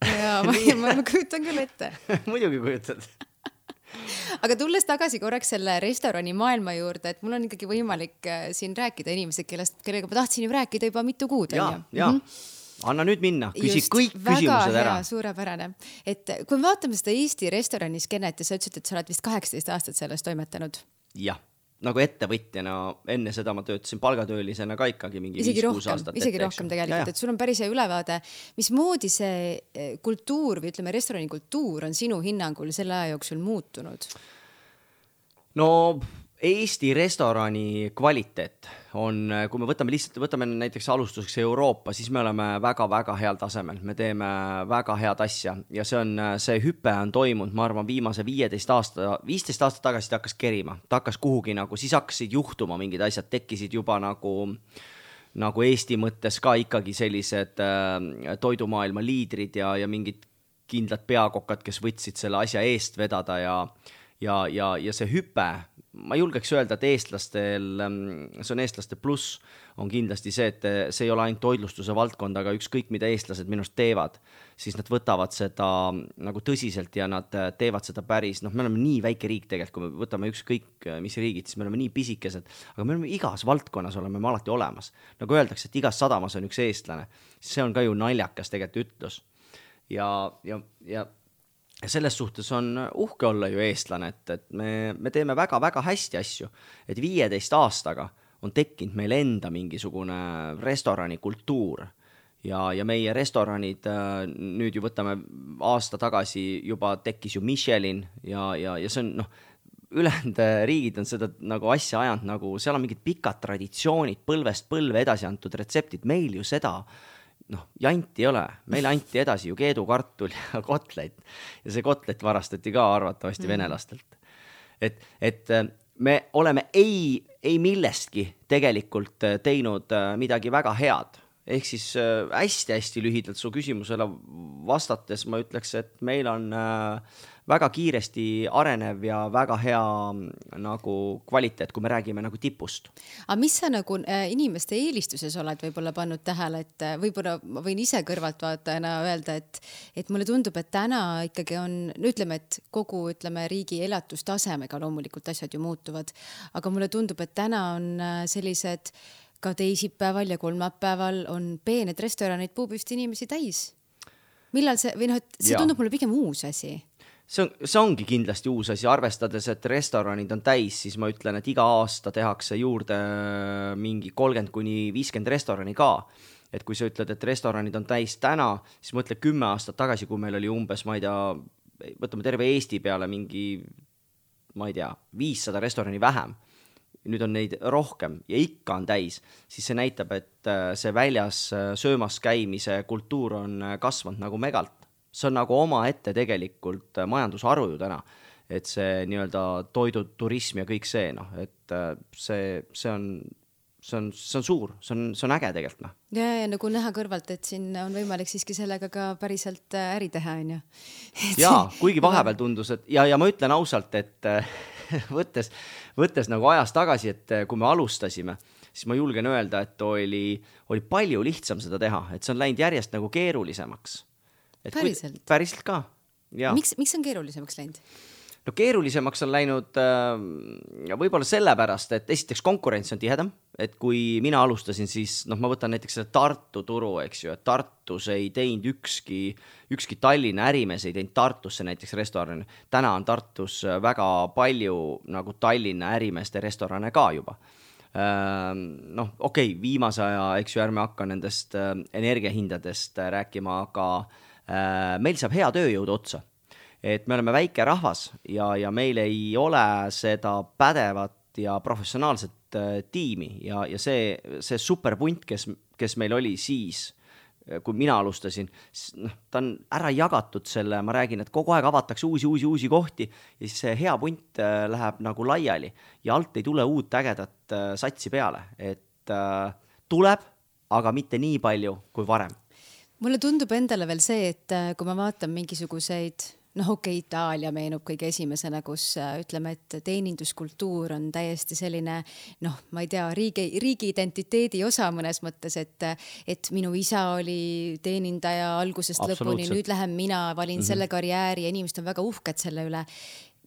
Jaa, ma kujutan küll ette. Muidugi kujutad. Aga tulles tagasi korraks selle restorani maailma juurde, et mul on ikkagi võimalik siin rääkida inimesed, kellega ma tahtsin ju rääkida juba mitu kuud. Jaa. Anna nüüd minna, küsi kõik küsimused ära. Väga suurepärane. Et kui me vaatame seda Eesti restoraniskenet ja sa ütlesid, et sa oled vist 18 aastat sellest toimetanud. Jah, nagu ettevõtjana enne seda ma töötasin palgatöölisena ka ikkagi mingi 5-6 aastat. Isegi rohkem tegelikult, et sul on päris hea ülevaade. Mismoodi see kultuur või ütleme restorani kultuur on sinu hinnangul selle aja jooksul muutunud? No Eesti restorani kvaliteet on, kui me võtame näiteks alustuseks Euroopa, siis me oleme väga-väga heal tasemel. Me teeme väga head asja ja see hüpe on toimunud, ma arvan, viimase 15 aastat tagasi ta hakkas kerima. Ta hakkas kuhugi nagu, siis hakkasid juhtuma mingid asjad, tekkisid juba nagu Eesti mõttes ka ikkagi sellised toidumaailma liidrid ja mingid kindlad peakokad, kes võtsid selle asja eest vedada ja see hüpe, ma julgeks öelda, et eestlastel, see on eestlaste pluss, on kindlasti see, et see ei ole ainult toidlustuse valdkond, aga ükskõik mida eestlased minust teevad, siis nad võtavad seda nagu tõsiselt ja nad teevad seda päris, me oleme nii väike riik tegelikult, kui me võtame ükskõik mis riigid, siis me oleme nii pisikesed, aga me oleme igas valdkonnas oleme me alati olemas. Nagu öeldakse, et igas sadamas on üks eestlane, see on ka ju naljakas tegelikult ütlus. Ja selles suhtes on uhke olla ju eestlane, et me teeme väga-väga hästi asju, et 15 aastaga on tekkinud meil enda mingisugune restorani kultuur ja meie restoranid, nüüd ju võtame aasta tagasi juba tekkis ju Michelin ja see on, ülejäänud riigid on seda nagu asja ajanud, nagu seal on mingid pikad traditsioonid, põlvest põlve edasi antud retseptid, meil ju seda janti ei ole, meil anti edasi ju keedukartul ja kotlet ja see kotlet varastati ka arvatavasti venelastelt. Et me oleme ei millestki tegelikult teinud midagi väga head. Ehk siis hästi-hästi lühidalt su küsimusele vastates ma ütleks, et meil on väga kiiresti arenev ja väga hea nagu kvaliteet, kui me räägime nagu tipust. Aga mis sa nagu inimeste eelistuses oled võib-olla pannud tähele, et võib-olla ma võin ise kõrvalt vaatajana öelda, et mulle tundub, et täna ikkagi on, ütleme, et kogu riigi elatustasemega loomulikult asjad ju muutuvad, aga mulle tundub, et täna on sellised ka teisipäeval ja kolmapäeval on peened restoranid puupüsti inimesi täis. Millal see, või see tundub mulle pigem uus asi? See ongi kindlasti uus asi, arvestades, et restoranid on täis, siis ma ütlen, et iga aasta tehakse juurde mingi 30-50 restorani ka. Et kui sa ütled, et restoranid on täis täna, siis mõtle 10 aastat tagasi, kui meil oli umbes, ma ei tea, võtame terve Eesti peale mingi, ma ei tea, 500 restorani vähem. Nüüd on neid rohkem ja ikka on täis, siis see näitab, et see väljas söömas käimise kultuur on kasvanud nagu megalt. See on nagu oma ette tegelikult majandusharu ju täna, et see nii-öelda toiduturism ja kõik see, et see on suur, see on äge tegelikult. Ja nagu näha kõrvalt, et siin on võimalik siiski sellega ka päriselt äri teha, on ju? Jaa, kuigi vahepeal tundus, et ja ma ütlen ausalt, et võttes nagu ajas tagasi, et kui me alustasime, siis ma julgen öelda, et oli palju lihtsam seda teha, et see on läinud järjest nagu keerulisemaks. Päriselt? Päriselt ka, jaa. Miks on keerulisemaks läinud? No keerulisemaks on läinud võib-olla sellepärast, et esiteks konkurents on tihedam, et kui mina alustasin, siis ma võtan näiteks selle Tartu turu, eks ju, et Tartus ei teinud ükski Tallinna ärimees ei teinud Tartusse näiteks restorani. Täna on Tartus väga palju nagu Tallinna ärimeeste restorane ka juba. Okei, viimase aja, eks ju, ärme hakka nendest energiahindadest rääkima, aga meil saab hea tööjõud otsa. Et me oleme väike rahvas ja meil ei ole seda pädevat ja professionaalset tiimi ja see superpunt, kes meil oli siis, kui mina alustasin, ta on ära jagatud selle, ma räägin, et kogu aeg avatakse uusi kohti ja siis see hea punt läheb nagu laiali ja alt ei tule uut ägedat satsi peale, et tuleb, aga mitte nii palju kui varem. Mulle tundub endale veel see, et kui ma vaatan mingisuguseid Itaalia meenub kõige esimesena, kus ütleme, et teeninduskultuur on täiesti selline, ma ei tea, riigi identiteedi osa mõnes mõttes, et minu isa oli teenindaja algusest lõpuni, nüüd lähen mina, valin selle karjääri ja inimesed on väga uhked selle üle.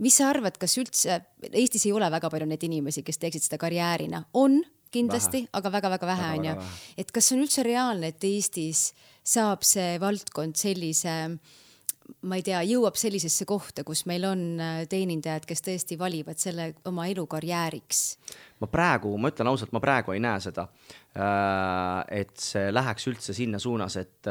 Mis sa arvad, kas üldse, Eestis ei ole väga palju neid inimesi, kes teeksid seda karjäärina? On kindlasti, aga väga-väga vähe on ju. Et kas on üldse reaalne, et Eestis saab see valdkond sellise ma ei tea, jõuab sellisesse kohta, kus meil on teenindajad, kes tõesti valivad selle oma elukarjääriks? Ma ütlen ausalt, ma praegu ei näe seda, et see läheks üldse sinna suunas, et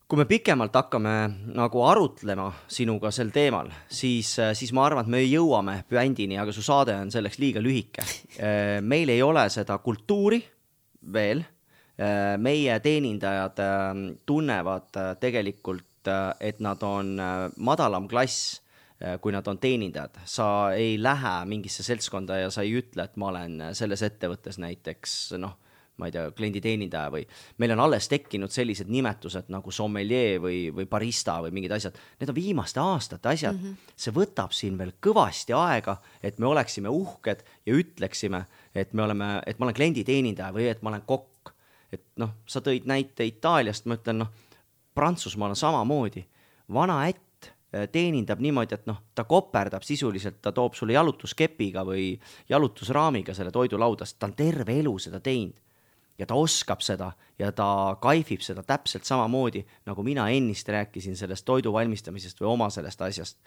kui me pikemalt hakkame nagu arutlema sinuga sel teemal, siis ma arvan, et me jõuame püändini, aga su saade on selleks liiga lühike. Meil ei ole seda kultuuri veel. Meie teenindajad tunnevad tegelikult, et nad on madalam klass, kui nad on teenindajad. Sa ei lähe mingisse seltskonda ja sa ei ütle, et ma olen selles ettevõttes näiteks, ma ei tea, klienditeenindaja või meil on alles tekkinud sellised nimetused nagu sommelier või barista või mingid asjad. Need on viimaste aastate asjad. See võtab siin veel kõvasti aega, et me oleksime uhked ja ütleksime, et ma olen klienditeenindaja või et ma olen kokk. Et noh, sa tõid näite Itaaliast, ma ütlen, Prantsusmaal on samamoodi. Vana ätt teenindab niimoodi, et ta koperdab sisuliselt, ta toob sulle jalutuskepiga või jalutusraamiga selle toidulaudast, ta on terve elu seda teinud ja ta oskab seda ja ta kaifib seda täpselt samamoodi, nagu mina ennist rääkisin sellest toidu valmistamisest või oma sellest asjast.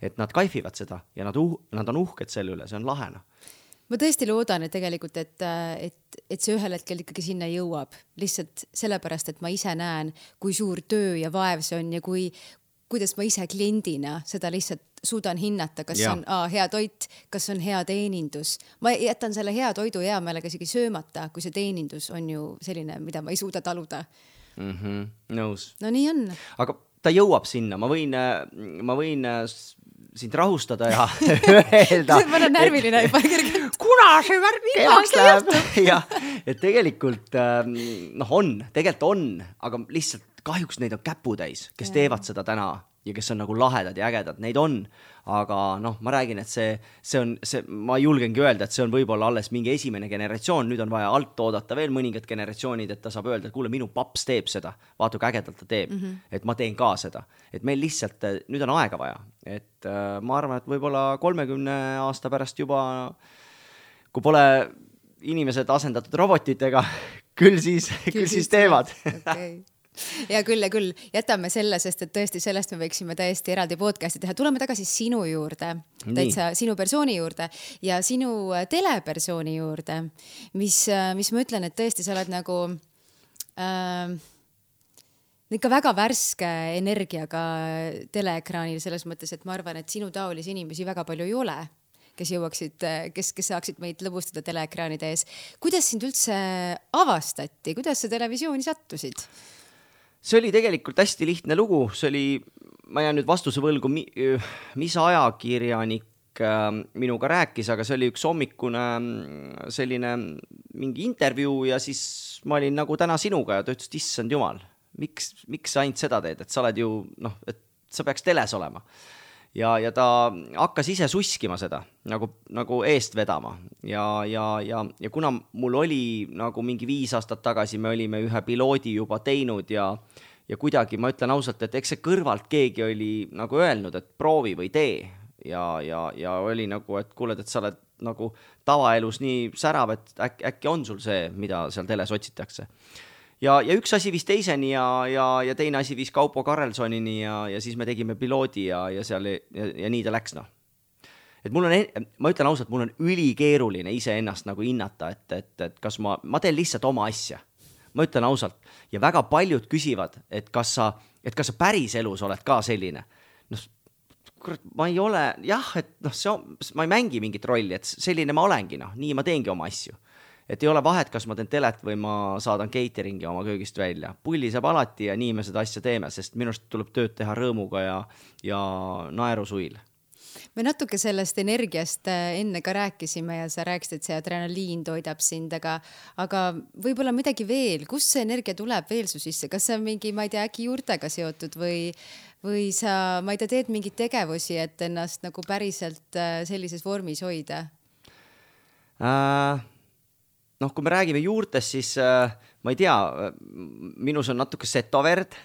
Et nad kaifivad seda ja nad on uhked selle üle, see on lahena. Ma tõesti loodan, et tegelikult, et see ühel hetkel ikkagi sinna jõuab. Lihtsalt sellepärast, et ma ise näen, kui suur töö ja vaev see on ja kuidas ma ise kliendina seda lihtsalt suudan hinnata, kas on hea toit, kas on hea teenindus. Ma jätan selle hea toidu hea meelega isegi söömata, kui see teenindus on ju selline, mida ma ei suuda taluda. Nõus. No nii on. Aga ta jõuab sinna, ma võin sind rahustada ja öelda. Ma olen närviline juba kergelt. Kuna see värk heaks läheb? Ja, et tegelikult tegelikult on, aga lihtsalt kahjuks neid on käputäis, kes teevad seda täna ja kes on nagu lahedad ja ägedad, neid on, aga ma räägin, et ma julgengi öelda, et see on võib-olla alles mingi esimene generatsioon, nüüd on vaja alt oodata veel mõningad generatsioonid, et ta saab öelda, et kuule, minu paps teeb seda, vaata kui ägedalt ta teeb, et ma teen ka seda, et meil lihtsalt, nüüd on aega vaja, et ma arvan, et võib-olla 30 aasta pärast juba, kui pole inimesed asendatud robotitega, küll siis teevad. Okay. Ja küll. Jätame selle, sest et tõesti sellest me võiksime täiesti eraldi podcasti teha. Tuleme tagasi sinu juurde, täitsa sinu persooni juurde ja sinu telepersooni juurde, mis ma ütlen, et tõesti sa oled nagu ikka väga värske energiaga teleekraanil selles mõttes, et ma arvan, et sinu taolisi inimesi väga palju ei ole, kes saaksid meid lõbustada teleekraanide ees. Kuidas sind üldse avastati? Kuidas sa televisiooni sattusid? See oli tegelikult hästi lihtne lugu, ma jään nüüd vastuse võlgu, mis ajakirjanik minuga rääkis, aga see oli üks hommikune selline mingi intervjuu ja siis ma olin nagu täna sinuga ja ta ütles, et issand jumal, miks sa ainult seda teed, et sa oled ju, et sa peaks teles olema. Ja ta hakkas ise suskima seda, nagu eest vedama ja kuna mul oli nagu mingi 5 aastat tagasi, me olime ühe piloodi juba teinud ja kuidagi ma ütlen ausalt, et eks see kõrvalt keegi oli nagu öelnud, et proovi või tee ja oli nagu, et kuuled, et sa oled nagu tavaelus nii särav, et äkki on sul see, mida seal teles otsitakse. Ja üks asi viis teiseni ja teine asi viis Kaupo Karelsonini ja siis me tegime piloodi ja nii ta läks. Et ma ütlen ausalt, mul on ülikeeruline iseennast nagu hinnata, et kas ma teen lihtsalt oma asja. Ma ütlen ausalt ja väga paljud küsivad, et kas sa päris elus oled ka selline. Ma ei ole, et ma ei mängi mingit rolli, et selline ma olengi, nii ma teengi oma asju. Et ei ole vahet, kas ma teen telet või ma saadan cateringi oma köögist välja. Pulli saab alati ja nii me seda asja teeme, sest minust tuleb tööd teha rõõmuga ja naerusuil. Me natuke sellest energiast enne ka rääkisime ja sa rääkisid, et see adrenaliin toidab sind, aga võib-olla midagi veel. Kust see energia tuleb veel su sisse? Kas see on mingi, ma ei tea, äkki juurtega seotud või sa, ma ei tea, teed mingeid tegevusi, et ennast nagu päriselt sellises vormis hoida? Kui me räägime juurtest, siis ma ei tea, minus on natuke setoverd,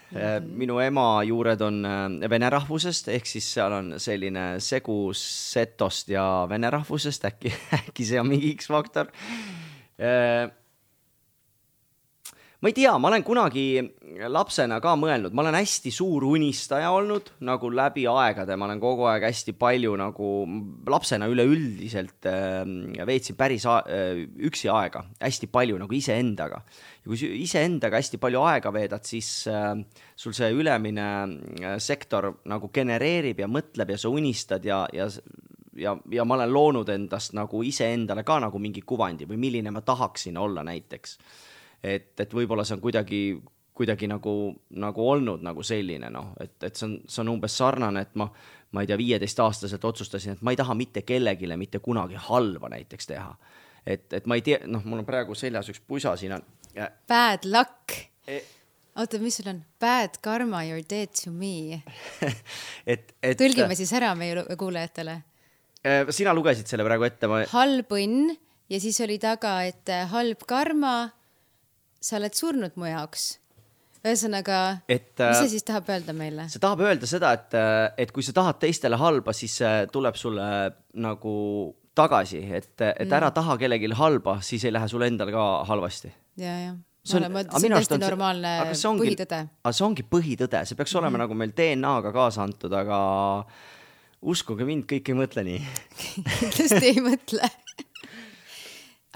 minu ema juured on vene rahvusest, ehk siis seal on selline segus setost ja vene rahvusest, äkki see on mingi X-faktor. Ma ei tea, ma olen kunagi lapsena ka mõelnud, ma olen hästi suur unistaja olnud, nagu läbi aegade, ma olen kogu aeg hästi palju nagu lapsena üleüldiselt veetsin päris üksi aega, hästi palju nagu iseendaga. Ja kui iseendaga hästi palju aega veedad, siis sul see ülemine sektor nagu genereerib ja mõtleb ja sa unistad ja ma olen loonud endast nagu iseendale ka nagu mingi kuvandi või milline ma tahaksin olla näiteks. Et võib-olla see on kuidagi nagu olnud nagu selline, et see on umbes sarnane, et ma ei tea, 15-aastaselt otsustasin, et ma ei taha mitte kellegile mitte kunagi halva näiteks teha. Et ma ei tea, mul on praegu seljas üks pusa, siin on Bad luck. Oota, mis sul on? Bad karma, you're dead to me. Tõlgime siis ära meie kuulajatele. Sina lugesid selle praegu ette. Halb õnn ja siis oli taga, et halb karma, sa oled surnud mu jaoks. Ühesõnaga, mis see siis tahab öelda meile? See tahab öelda seda, et kui sa tahad teistele halba, siis tuleb sulle nagu tagasi, et ära taha kellegi halba, siis ei lähe sulle endal ka halvasti. Ja. See on täiesti normaalne põhitõde. See ongi põhitõde, see peaks olema nagu meil DNA-ga kaasa antud, aga uskuge mind, kõik ei mõtle nii. Kindlasti ei mõtle.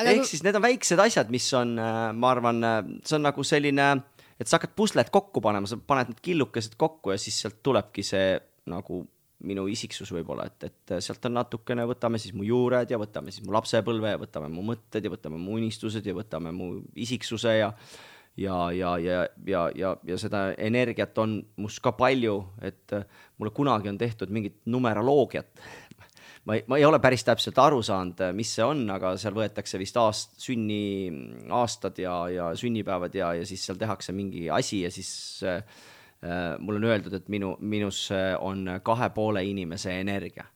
Ehk siis need on väiksed asjad, mis on, ma arvan, see on nagu selline, et sa hakkad puslet kokku panema, sa paned need killukesed kokku ja siis sealt tulebki see nagu minu isiksus võib-olla, et sealt on natukene, võtame siis mu juured ja võtame siis mu lapsepõlve ja võtame mu mõtted ja võtame mu unistused ja võtame mu isiksuse ja seda energiat on must ka palju, et mulle kunagi on tehtud mingit numeroloogiat. Ma ei ole päris täpselt aru saanud, mis see on, aga seal võetakse vist sünniaastad ja sünnipäevad ja siis seal tehakse mingi asi ja siis mul on öeldud, et minus on 2,5 inimese energia.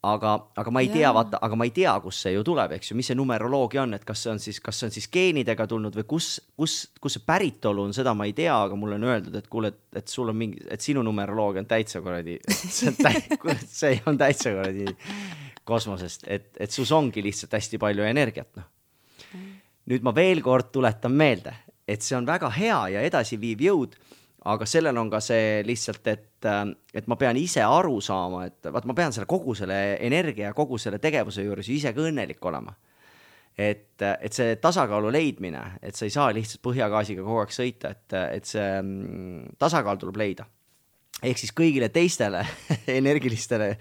Aga ma ei tea, aga ma ei tea, kus see ju tuleb, eks ju, mis see numeroloogia on, et kas see on siis geenidega tulnud või kus see päritolu on, seda ma ei tea, aga mulle on öeldud, et kuule, et sul on mingi, et sinu numeroloogia on täitsa korradi, see on täitsa korradi kosmosest, et sus ongi lihtsalt hästi palju energiat. No. Nüüd ma veel kord tuletan meelde, et see on väga hea ja edasi viiv jõud, aga sellel on ka see lihtsalt, et ma pean ise aru saama, et ma pean kogu selle energia ja kogu selle tegevuse juures ise ka õnnelik olema. Et see tasakaalu leidmine, et sa ei saa lihtsalt põhjagaasiga kogu aeg sõita, et see tasakaal tuleb leida. Ehk siis kõigile teistele energilistele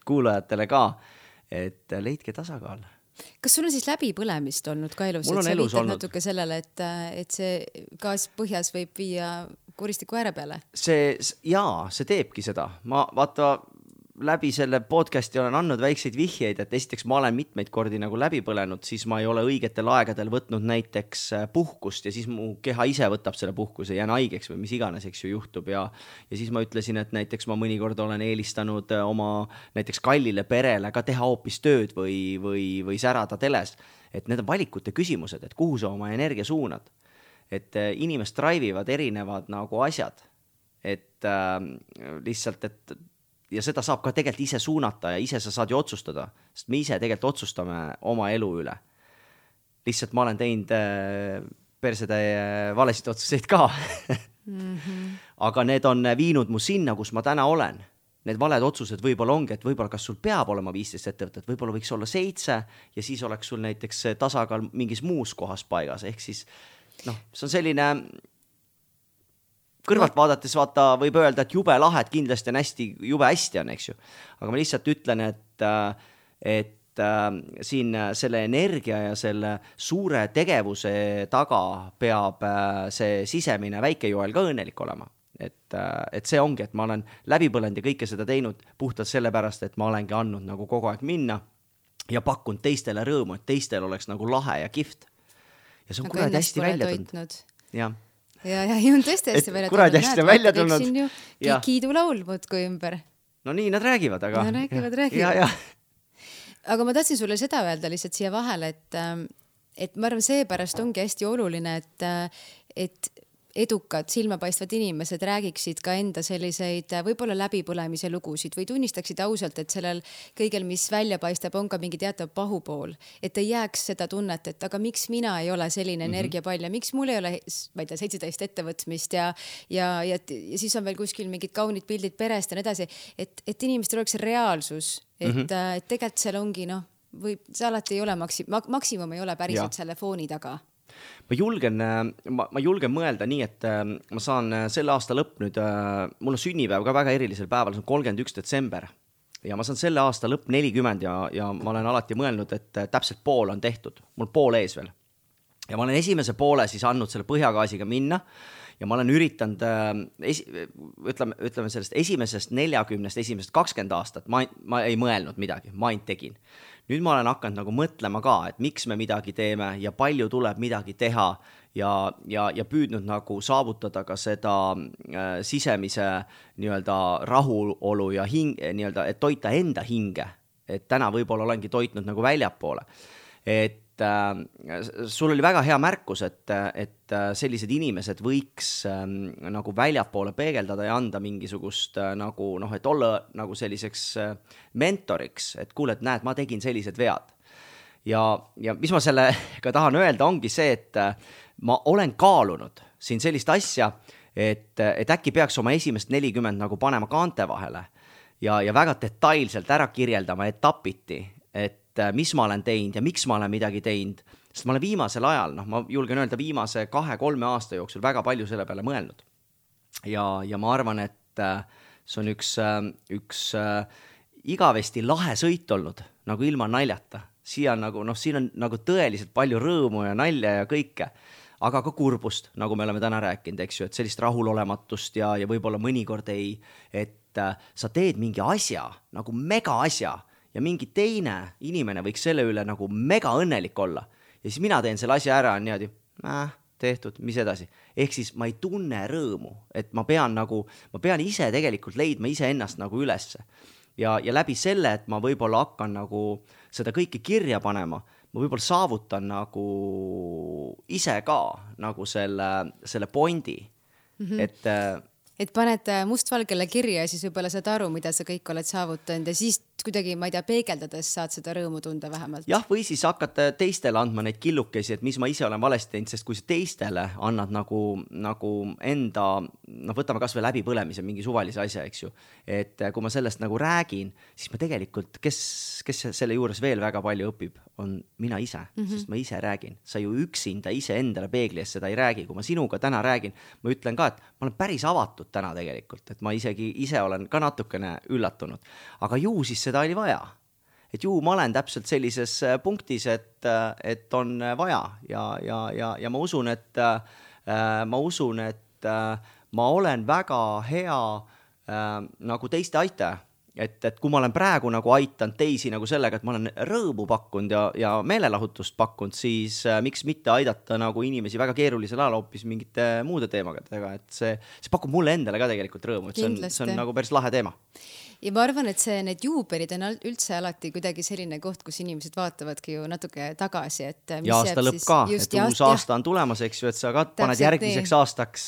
kuulajatele ka, et leidke tasakaal. Kas sul on siis läbipõlemist olnud ka elus? Mul on elus olnud. Natuke sellele, et see gaas põhjas võib viia kuristiku ääre peale? See teebki seda. Ma vaata läbi selle podcasti olen andnud väikseid vihjeid, et esiteks ma olen mitmeid kordi nagu läbi põlenud, siis ma ei ole õigetel aegadel võtnud näiteks puhkust ja siis mu keha ise võtab selle puhkuse, jään haigeks või mis iganes, eks ju, juhtub ja siis ma ütlesin, et näiteks ma mõnikord olen eelistanud oma näiteks kallile perele ka teha hoopis tööd või särada teles, et need on valikute küsimused, et kuhu sa oma energia suunad, et inimest drive'ivad erinevad nagu asjad, et lihtsalt, et ja seda saab ka tegelikult ise suunata ja ise sa saad ju otsustada, sest me ise tegelikult otsustame oma elu üle. Lihtsalt ma olen teinud persetäie valesid otsuseid ka. Aga need on viinud mu sinna, kus ma täna olen. Need valed otsused võib-olla ongi, et võib-olla kas sul peab olema 15 ettevõtet, võib-olla võiks olla 7 ja siis oleks sul näiteks tasakaal mingis muus kohas paigas. Ehk siis, see on selline kõrvalt vaadates võib öelda, et jube lahed kindlasti on jube hästi on, eks ju. Aga ma lihtsalt ütlen, et siin selle energia ja selle suure tegevuse taga peab see sisemine väikejoel ka õnnelik olema. Et see ongi, et ma olen läbi põlenud ja kõike seda teinud puhtalt sellepärast, et ma olengi andnud nagu kogu aeg minna ja pakkunud teistele rõõmu, et teistel oleks nagu lahe ja kihvt. Ja see on kuradi hästi välja tulnud. Jah. Ja on tõesti hästi välja tulnud. Kuradi hästi välja tulnud. Siin ju kiidulaul muudkui ümber. No nii nad räägivad, aga... No räägivad. Ja. Aga ma tahtsin sulle seda öelda lihtsalt siia vahele, et ma arvan, seepärast ongi hästi oluline, et edukad, silmapaistvad inimesed räägiksid ka enda selliseid võib-olla läbipõlemise lugusid või tunnistaksid ausalt, et sellel kõigel, mis välja paistab, on ka mingi teatav pahupool. Et ei jääks seda tunnet, et aga miks mina ei ole selline energiapall ja miks mul ei ole, ma ei tea, 17 ettevõtmist ja siis on veel kuskil mingid kaunid pildid perest ja nii edasi. Et inimestel oleks reaalsus, et tegelikult seal ongi, see alati ei ole maksimum ei ole päriselt selle fooni taga. Ma julgen mõelda nii, et ma saan selle aasta lõpp nüüd, mul on sünnipäev ka väga erilisel päeval, see on 31. detsember ja ma saan selle aasta lõpp 40 ja ma olen alati mõelnud, et täpselt pool on tehtud, mul pool ees veel. Ja ma olen esimese poole siis andnud selle põhjagaasiga minna ja ma olen üritanud, ütleme sellest esimesest 40, esimesest 20 aastat, ma ei mõelnud midagi, ma ainult tegin. Nüüd ma olen hakanud nagu mõtlema ka, et miks me midagi teeme ja palju tuleb midagi teha ja püüdnud nagu saavutada ka seda sisemise nii-öelda rahulolu ja nii-öelda, et toita enda hinge, et täna võib-olla olengi toitnud nagu väljapoole. Et sul oli väga hea märkus, et sellised inimesed võiks nagu väljapoole peegeldada ja anda mingisugust nagu et olla nagu selliseks mentoriks, et kuule, et näed, ma tegin sellised vead. Ja mis ma sellega tahan öelda, ongi see, et ma olen kaalunud siin sellist asja, et äkki peaks oma esimest 40 nagu panema kaante vahele ja väga detailselt ära kirjeldama etapiti, et mis ma olen teinud ja miks ma olen midagi teinud, sest ma olen viimasel ajal, ma julgen öelda viimase 2-3 aasta jooksul väga palju selle peale mõelnud. Ja ma arvan, et see on üks igavesti lahe sõit olnud, nagu ilma naljata. Siin on nagu tõeliselt palju rõõmu ja nalja ja kõike, aga ka kurbust, nagu me oleme täna rääkinud, eks ju, et sellist rahulolematust ja võib-olla mõnikord et sa teed mingi asja, nagu mega asja, ja mingi teine inimene võiks selle üle nagu mega õnnelik olla. Ja siis mina teen selle asja ära, on niimoodi, tehtud, mis edasi. Ehk siis ma ei tunne rõõmu, et ma pean ise tegelikult leidma ise ennast nagu ülesse. Ja läbi selle, et ma võib-olla hakkan nagu seda kõike kirja panema, ma võib-olla saavutan nagu ise ka nagu selle pointi, et paned mustvalgele kirja ja siis võib-olla saad aru, mida sa kõik oled saavutanud ja siis kuidagi, ma ei tea, peegeldades saad seda rõõmu tunda vähemalt. Jah, või siis hakkad teistele andma neid killukesi, et mis ma ise olen valesti teinud, sest kui sa teistele annad nagu enda, võtame kas või läbipõlemise mingi suvalise asja, eks ju, et kui ma sellest nagu räägin, siis ma tegelikult, kes selle juures veel väga palju õpib, on mina ise, sest ma ise räägin. Sa ju üksinda ise endale peegli ees seda ei räägi. Kui ma sinuga täna räägin, ma ütlen ka, et ma olen päris avatud täna tegelikult, et ma isegi ise olen ka natukene üllatunud. Aga ju siis seda oli vaja. Et ju ma olen täpselt sellises punktis, et on vaja ja ma usun, et ma olen väga hea nagu teiste aitaja. Et kui ma olen praegu nagu aitanud teisi nagu sellega, et ma olen rõõmu pakkunud ja meelelahutust pakkunud, siis miks mitte aidata nagu inimesi väga keerulisel ajal hoopis mingite muude teemadega, et see pakub mulle endale ka tegelikult rõõmu, et see on nagu päris lahe teema. Ja ma arvan, et need juubelid on üldse alati kuidagi selline koht, kus inimesed vaatavadki ju natuke tagasi. Ja aasta lõpp ka, et uus aasta on tulemas, eks ju, et sa ka paned järgmiseks aastaks,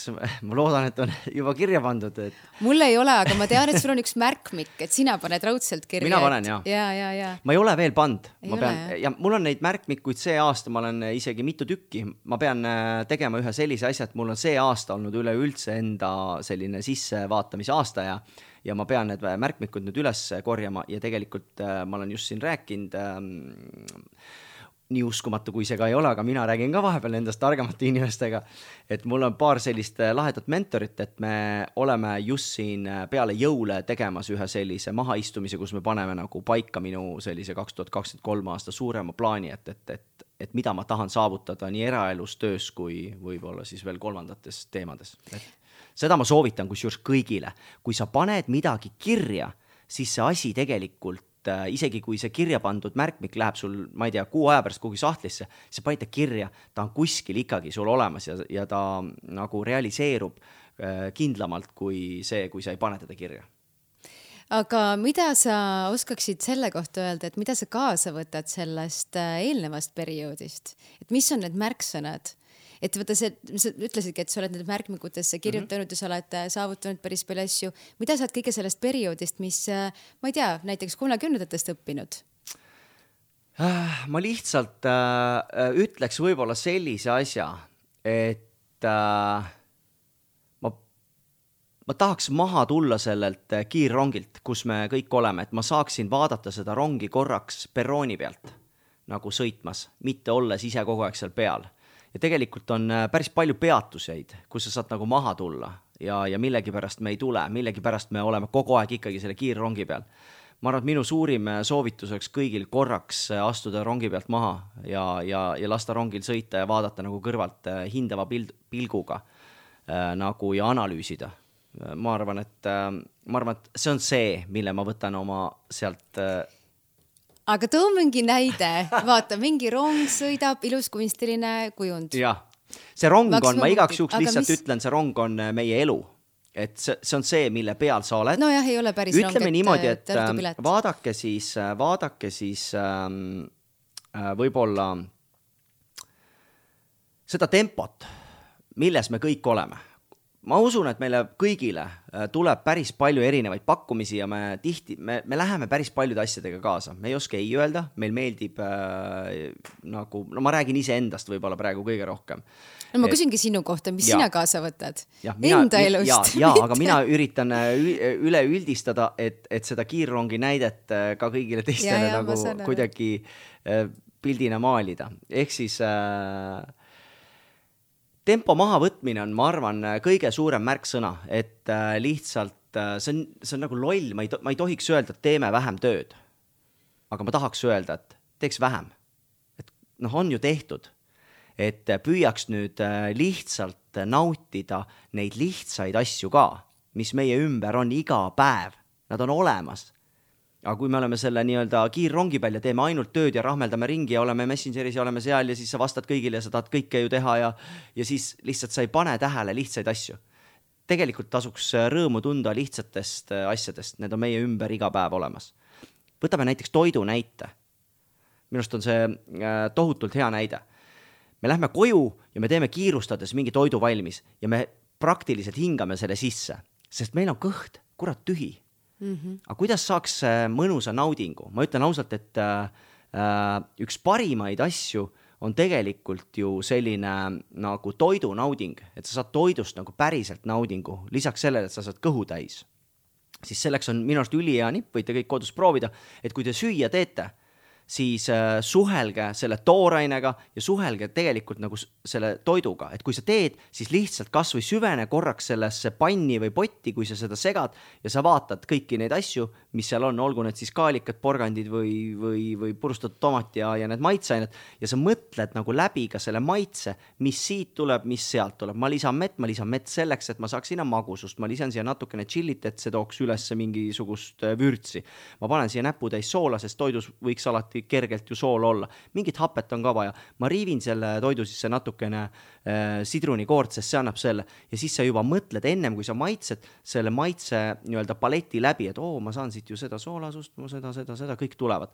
ma loodan, et on juba kirja pandud. Mul ei ole, aga ma tean, et sul on üks märkmik, et sina paned raudselt kirja. Mina panen, ja. Ma ei ole veel pand. Ja mul on neid märkmikuid see aasta, ma olen isegi mitu tükki. Ma pean tegema ühe sellise asja, et mul on see aasta olnud üleüldse enda selline sissevaatamise aasta ja ma pean need märkmikud nüüd üles korjama ja tegelikult ma olen just siin rääkinud, nii uskumatu kui see ka ei ole, aga mina räägin ka vahepeal endast targemate inimestega, et mul on paar sellist lahedat mentorit, et me oleme just siin peale jõule tegemas ühe sellise mahaistumise, kus me paneme nagu paika minu sellise 2023 aasta suurema plaani, et mida ma tahan saavutada nii eraelus, töös kui võib-olla siis veel kolmandates teemades. Seda ma soovitan kusjuures kõigile. Kui sa paned midagi kirja, siis see asi tegelikult, isegi kui see kirja pandud märkmik läheb sul, ma ei tea, 6 aja pärast kuhugi sahtlisse, sa panid ta kirja, ta on kuskil ikkagi sul olemas ja ta nagu realiseerub kindlamalt kui sa ei pane teda kirja. Aga mida sa oskaksid selle kohta öelda, et mida sa kaasa võtad sellest eelnevast perioodist? Et mis on need märksõnad? Et võtta sa ütlesidki, et sa oled need märkmikutesse kirjutanud ja sa oled saavutanud päris palju asju. Mida sa oled kõige sellest perioodist, mis, ma ei tea, näiteks 30-ndatest õppinud? Ma lihtsalt ütleks võib-olla sellise asja, et ma tahaks maha tulla sellelt kiirrongilt, kus me kõik oleme, et ma saaksin vaadata seda rongi korraks perrooni pealt nagu sõitmas, mitte olles ise kogu aeg seal peal. Ja tegelikult on päris palju peatuseid, kus sa saad nagu maha tulla ja millegi pärast me ei tule, millegi pärast me oleme kogu aeg ikkagi selle kiirrongi peal. Ma arvan, et minu suurim soovitus oleks kõigil korraks astuda rongi pealt maha ja lasta rongil sõita ja vaadata nagu kõrvalt hindava pilguga nagu ja analüüsida. Ma arvan, et see on see, mille ma võtan oma sealt Aga too mingi näide, vaata, mingi rong sõidab, ilus kunstiline kujund. Jah, see rong on, ma igaks juhuks lihtsalt ütlen, see rong on meie elu. Et see on see, mille peal sa oled. No jah, ei ole päris rong, ütleme niimoodi, et vaadake siis võib-olla seda tempot, milles me kõik oleme. Ma usun, et meile kõigile tuleb päris palju erinevaid pakkumisi ja me läheme päris paljude asjadega kaasa. Me ei oska ei öelda, meil meeldib nagu, no ma räägin ise endast võib-olla praegu kõige rohkem. No ma küsingi sinu kohta, mis sina kaasa võtad? Enda elust? Ja, aga mina üritan üle üldistada, et seda kiirrongi näidet ka kõigile teistele nagu kuidagi pildina maalida. Ehk siis tempo maha võtmine on, ma arvan, kõige suurem märksõna, et lihtsalt see on nagu loll, ma ei tohiks öelda, et teeme vähem tööd. Aga ma tahaks öelda, et teeks vähem. Et on ju tehtud, et püüaks nüüd lihtsalt nautida neid lihtsaid asju ka, mis meie ümber on iga päev. Nad on olemas. Aga kui me oleme selle nii-öelda kiirrongi peal ja teeme ainult tööd ja rahmeldame ringi ja oleme Messengeris ja oleme seal ja siis sa vastad kõigile ja sa tahad kõike ju teha ja siis lihtsalt sa ei pane tähele lihtsaid asju. Tegelikult tasuks rõõmu tunda lihtsatest asjadest, need on meie ümber iga päev olemas. Võtame näiteks toidu näite. Minust on see tohutult hea näide. Me lähme koju ja me teeme kiirustades mingi toidu valmis ja me praktiliselt hingame selle sisse, sest meil on kõht, kurat tühi. Aga kuidas saaks mõnusa naudingu? Ma ütlen ausalt, et üks parimaid asju on tegelikult ju selline nagu toidu nauding, et sa saad toidust nagu päriselt naudingu, lisaks sellele, et sa saad kõhu täis. Siis selleks on minu arust ülihea nipp, võite kõik kodus proovida, et kui te süüa teete, siis suhelge selle toorainega ja suhelge tegelikult nagu selle toiduga. Et kui sa teed, siis lihtsalt kas või süvene korraks sellesse panni või potti, kui sa seda segad ja sa vaatad kõiki neid asju, mis seal on, olgu need siis kaalikad, porgandid või purustatud tomat ja need maitseained ja sa mõtled nagu läbi ka selle maitse, mis siit tuleb, mis sealt tuleb. Ma lisan mett selleks, et ma saaks sinna magusust, ma lisan siia natukene chillit, et see tooks üles mingisugust vürtsi. Ma panen siia näputäis soola, sest toidus võiks alati kergelt ju sool olla. Mingit hapet on ka vaja. Ma riivin selle toidu sisse natukene sidrunikoort, sest see annab selle. Ja siis sa juba mõtled ennem, kui sa maitsed selle maitse nii-öelda paleti läbi, et ma saan siit ju seda soolasust, seda, kõik tulevad.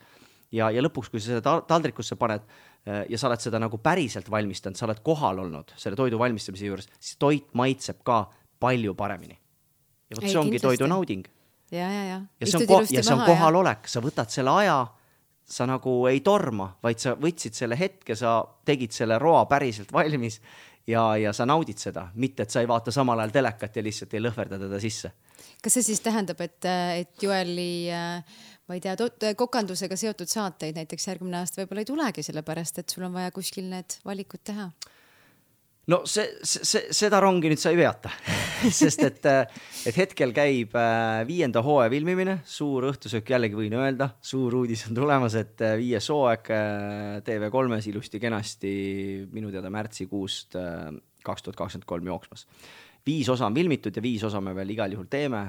Ja lõpuks, kui sa seda taldrikusse paned ja sa oled seda nagu päriselt valmistanud, sa oled kohal olnud selle toidu valmistamise juures, siis toit maitseb ka palju paremini. Ja võt, see ongi toidu nauding. Ja see on kohalolek, sa võtad selle aja, sa nagu ei torma, vaid sa võtsid selle hetke, sa tegid selle roa päriselt valmis ja sa naudid seda, mitte et sa ei vaata samal ajal telekat ja lihtsalt ei lõhverda teda sisse. Kas see siis tähendab, et Joeli, ma ei tea, kokandusega seotud saateid näiteks järgmine aasta võib-olla ei tulegi sellepärast, et sul on vaja kuskil need valikud teha? No seda rongi nüüd sa ei veata, sest et hetkel käib 5. hooaja filmimine, suur õhtusöök jällegi võin öelda, suur uudis on tulemas, et 5. hooaeg TV3-s ilusti kenasti minu teada märtsikuust 2023 jooksmas. 5 osa on filmitud ja 5 osa me veel igal juhul teeme,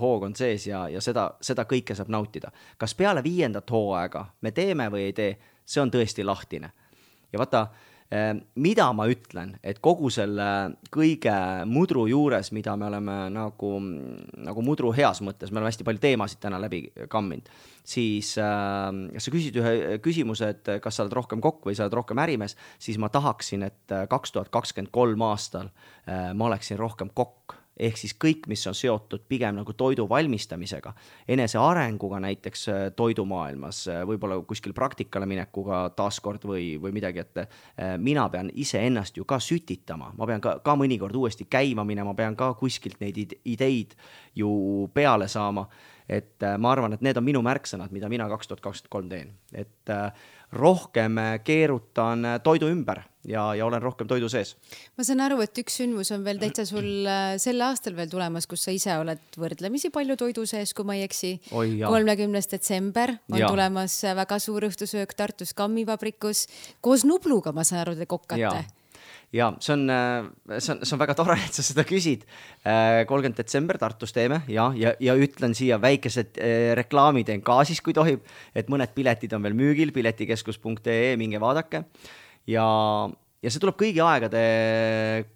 hoog on sees ja seda kõike saab nautida. Kas peale 5. hooaega me teeme või ei tee, see on tõesti lahtine. Ja vaata, mida ma ütlen, et kogu selle kõige mudru juures, mida me oleme nagu mudru heas mõttes, me oleme hästi palju teemasid täna läbi kamminud, siis sa küsid ühe küsimuse, et kas sa oled rohkem kokk või sa oled rohkem ärimees, siis ma tahaksin, et 2023 aastal ma oleksin rohkem kokk. Ehk siis kõik, mis on seotud pigem nagu toidu valmistamisega, enese arenguga näiteks toidumaailmas, võib-olla kuskil praktikale minekuga taaskord või midagi, et mina pean ise ennast ju ka sütitama, ma pean ka mõnikord uuesti käima minema, ma pean ka kuskilt neid ideid ju peale saama, et ma arvan, et need on minu märksõnad, mida mina 2023 teen, et rohkem keerutan toidu ümber ja olen rohkem toidu sees. Ma saan aru, et üks sündmus on veel täitsa sul sel aastal veel tulemas, kus sa ise oled võrdlemisi palju toidu sees, kui ma ei eksi. 30. detsember on tulemas väga suur õhtusöök Tartus Kammivabrikus. Koos Nubluga, ma saan aru, te kokkate. Ja see on väga tore, et sa seda küsid. 30. detsember Tartus teeme ja ütlen siia väikesed reklaamid ka siis, kui tohib, et mõned piletid on veel müügil, piletikeskus.ee, minge vaadake. Ja ja see tuleb kõigi aegade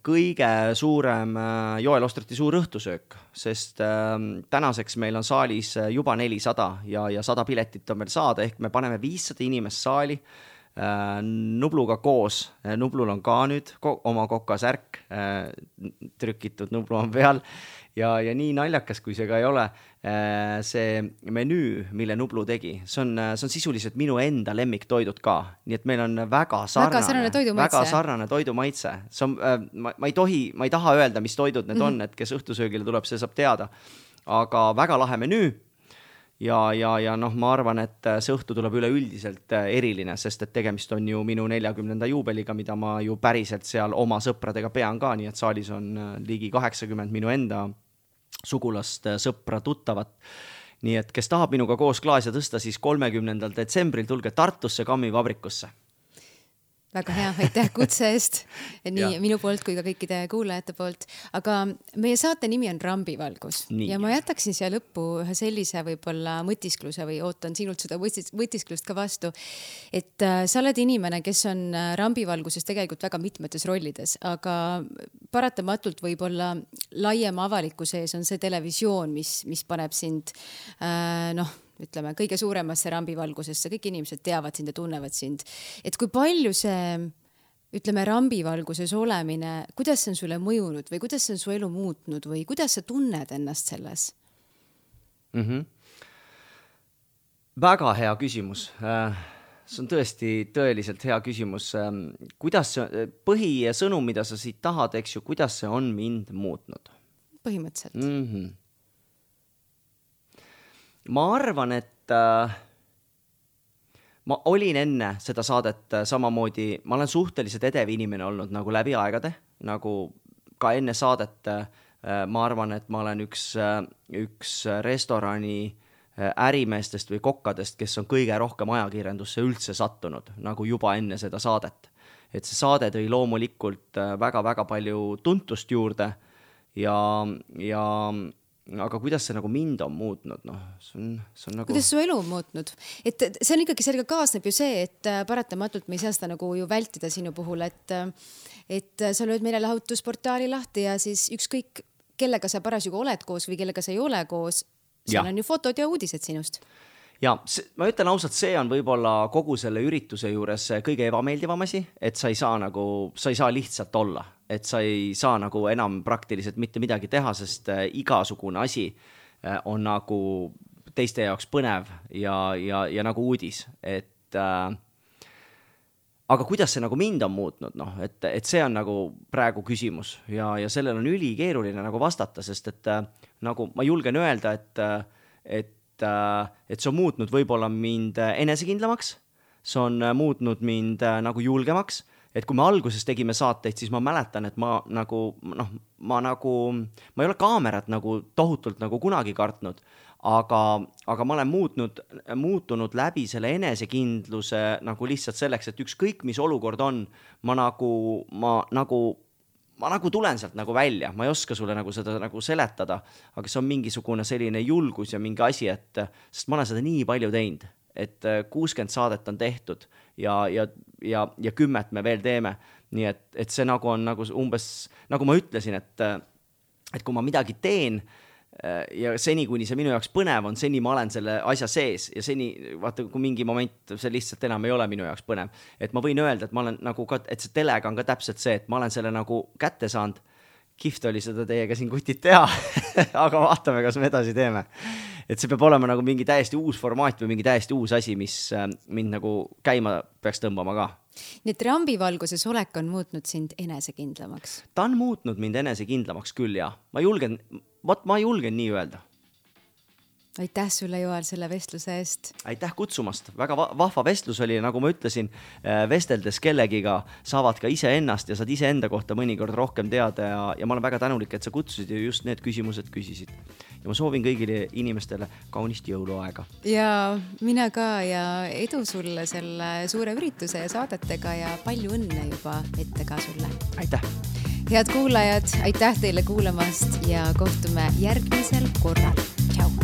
kõige suurem Joel Ostrati suur õhtusöök, sest tänaseks meil on saalis juba 400 ja 100 piletit on meil saada, ehk me paneme 500 inimest saali Nubluga koos. Nublul on ka nüüd oma kokasärk, trükitud Nublu on peal ja nii naljakas, kui see ka ei ole, see menüü, mille Nublu tegi, see on sisuliselt minu enda lemmiktoidud ka, nii et meil on väga sarnane toidumaitse. See on, ma ei taha öelda, mis toidud need on, et kes õhtusöögile tuleb, see saab teada, aga väga lahe menüü. Ja noh, ma arvan, et see õhtu tuleb üleüldiselt eriline, sest et tegemist on ju minu 40. juubeliga, mida ma ju päriselt seal oma sõpradega pean ka, nii et saalis on ligi 80 minu enda sugulast, sõpra, tuttavat. Nii et kes tahab minuga koos klaase tõsta, siis 30. detsembril tulge Tartusse Kammivabrikusse. Väga hea, aitäh kutse eest, nii minu poolt kui ka kõikide kuulajate poolt. Aga meie saate nimi on Rambivalgus ja ma jätaksin siia lõppu ühe sellise võib-olla mõtiskluse või ootan sinult seda mõtisklust ka vastu, et sa oled inimene, kes on Rambivalguses tegelikult väga mitmetes rollides, aga paratamatult võib-olla laiema avalikkuse ees on see televisioon, mis paneb sind ütleme, kõige suuremasse rambivalgusesse, kõik inimesed teavad sind ja tunnevad sind. Et kui palju see, ütleme, rambivalguses olemine, kuidas see on sulle mõjunud või kuidas see on su elu muutnud või kuidas sa tunned ennast selles? Väga hea küsimus. See on tõeliselt hea küsimus. Kuidas see, põhisõnum, mida sa siit tahad, eks ju, kuidas see on mind muutnud? Põhimõtteliselt. Ma arvan, et ma olin enne seda saadet samamoodi, ma olen suhteliselt edev inimene olnud nagu läbi aegade, nagu ka enne saadet ma arvan, et ma olen üks restorani ärimeestest või kokkadest, kes on kõige rohkem ajakirjandusse üldse sattunud, nagu juba enne seda saadet. Et see saade tõi loomulikult väga-väga palju tuntust juurde ja aga kuidas see nagu mind on muutnud? See on nagu... Kuidas su elu on muutnud? Et see on ikkagi sellega kaasneb ju see, et paratamatult me ei saa seda nagu ju vältida sinu puhul, et sa lööd meile lahutusportaali lahti ja siis ükskõik kellega sa parasjagu oled koos või kellega sa ei ole koos, seal on ju fotod ja uudised sinust. Ja ma ütlen ausalt, see on võib-olla kogu selle ürituse juures kõige ebameeldivam asi, et sa ei saa lihtsalt olla, et sa ei saa nagu enam praktiliselt mitte midagi teha, sest igasugune asi on nagu teiste jaoks põnev ja nagu uudis, et aga kuidas see nagu mind on muutnud, et see on nagu praegu küsimus ja sellel on ülikeeruline nagu vastata, sest et nagu ma julgen öelda, et see on muutnud võib-olla mind enesekindlamaks, see on muutnud mind nagu julgemaks, et kui me alguses tegime saateid, siis ma mäletan, et ma ei ole kaamerat nagu tohutult nagu kunagi kartnud, aga ma olen muutunud läbi selle enesekindluse nagu lihtsalt selleks, et ükskõik mis olukord on, ma nagu tulen sealt nagu välja, ma ei oska sulle nagu seda nagu seletada, aga see on mingisugune selline julgus ja mingi asi, sest ma olen seda nii palju teinud, et 60 saadet on tehtud ja 10 me veel teeme, nii et see nagu on nagu umbes, nagu ma ütlesin, et kui ma midagi teen ja seni, kuni see minu jaoks põnev on, seni ma olen selle asja sees ja seni, vaata, kui mingi moment see lihtsalt enam ei ole minu jaoks põnev, et ma võin öelda, et ma olen nagu ka, et see telega on ka täpselt see, et ma olen selle nagu kätte saanud, kihvt oli seda teiega siin kutid teha, aga vaatame, kas me edasi teeme. Et see peab olema nagu mingi täiesti uus formaat või mingi täiesti uus asi, mis mind nagu käima peaks tõmbama ka. Nii et rambivalguses olek on muutnud sind enesekindlamaks? Ta on muutnud mind enesekindlamaks küll, ja. Ma julgen nii öelda. Aitäh sulle, Joel, selle vestluse eest. Aitäh kutsumast. Väga vahva vestlus oli, nagu ma ütlesin, vesteldes kellegiga saavad ka ise ennast ja saad ise enda kohta mõnikord rohkem teada ja ma olen väga tänulik, et sa kutsusid ja just need küsimused küsisid. Ja ma soovin kõigile inimestele kaunist jõuluaega. Ja mina ka ja edu sulle selle suure ürituse ja saadetega ja palju õnne juba ette ka sulle. Aitäh! Head kuulajad, aitäh teile kuulamast ja kohtume järgmisel korral. Tšau!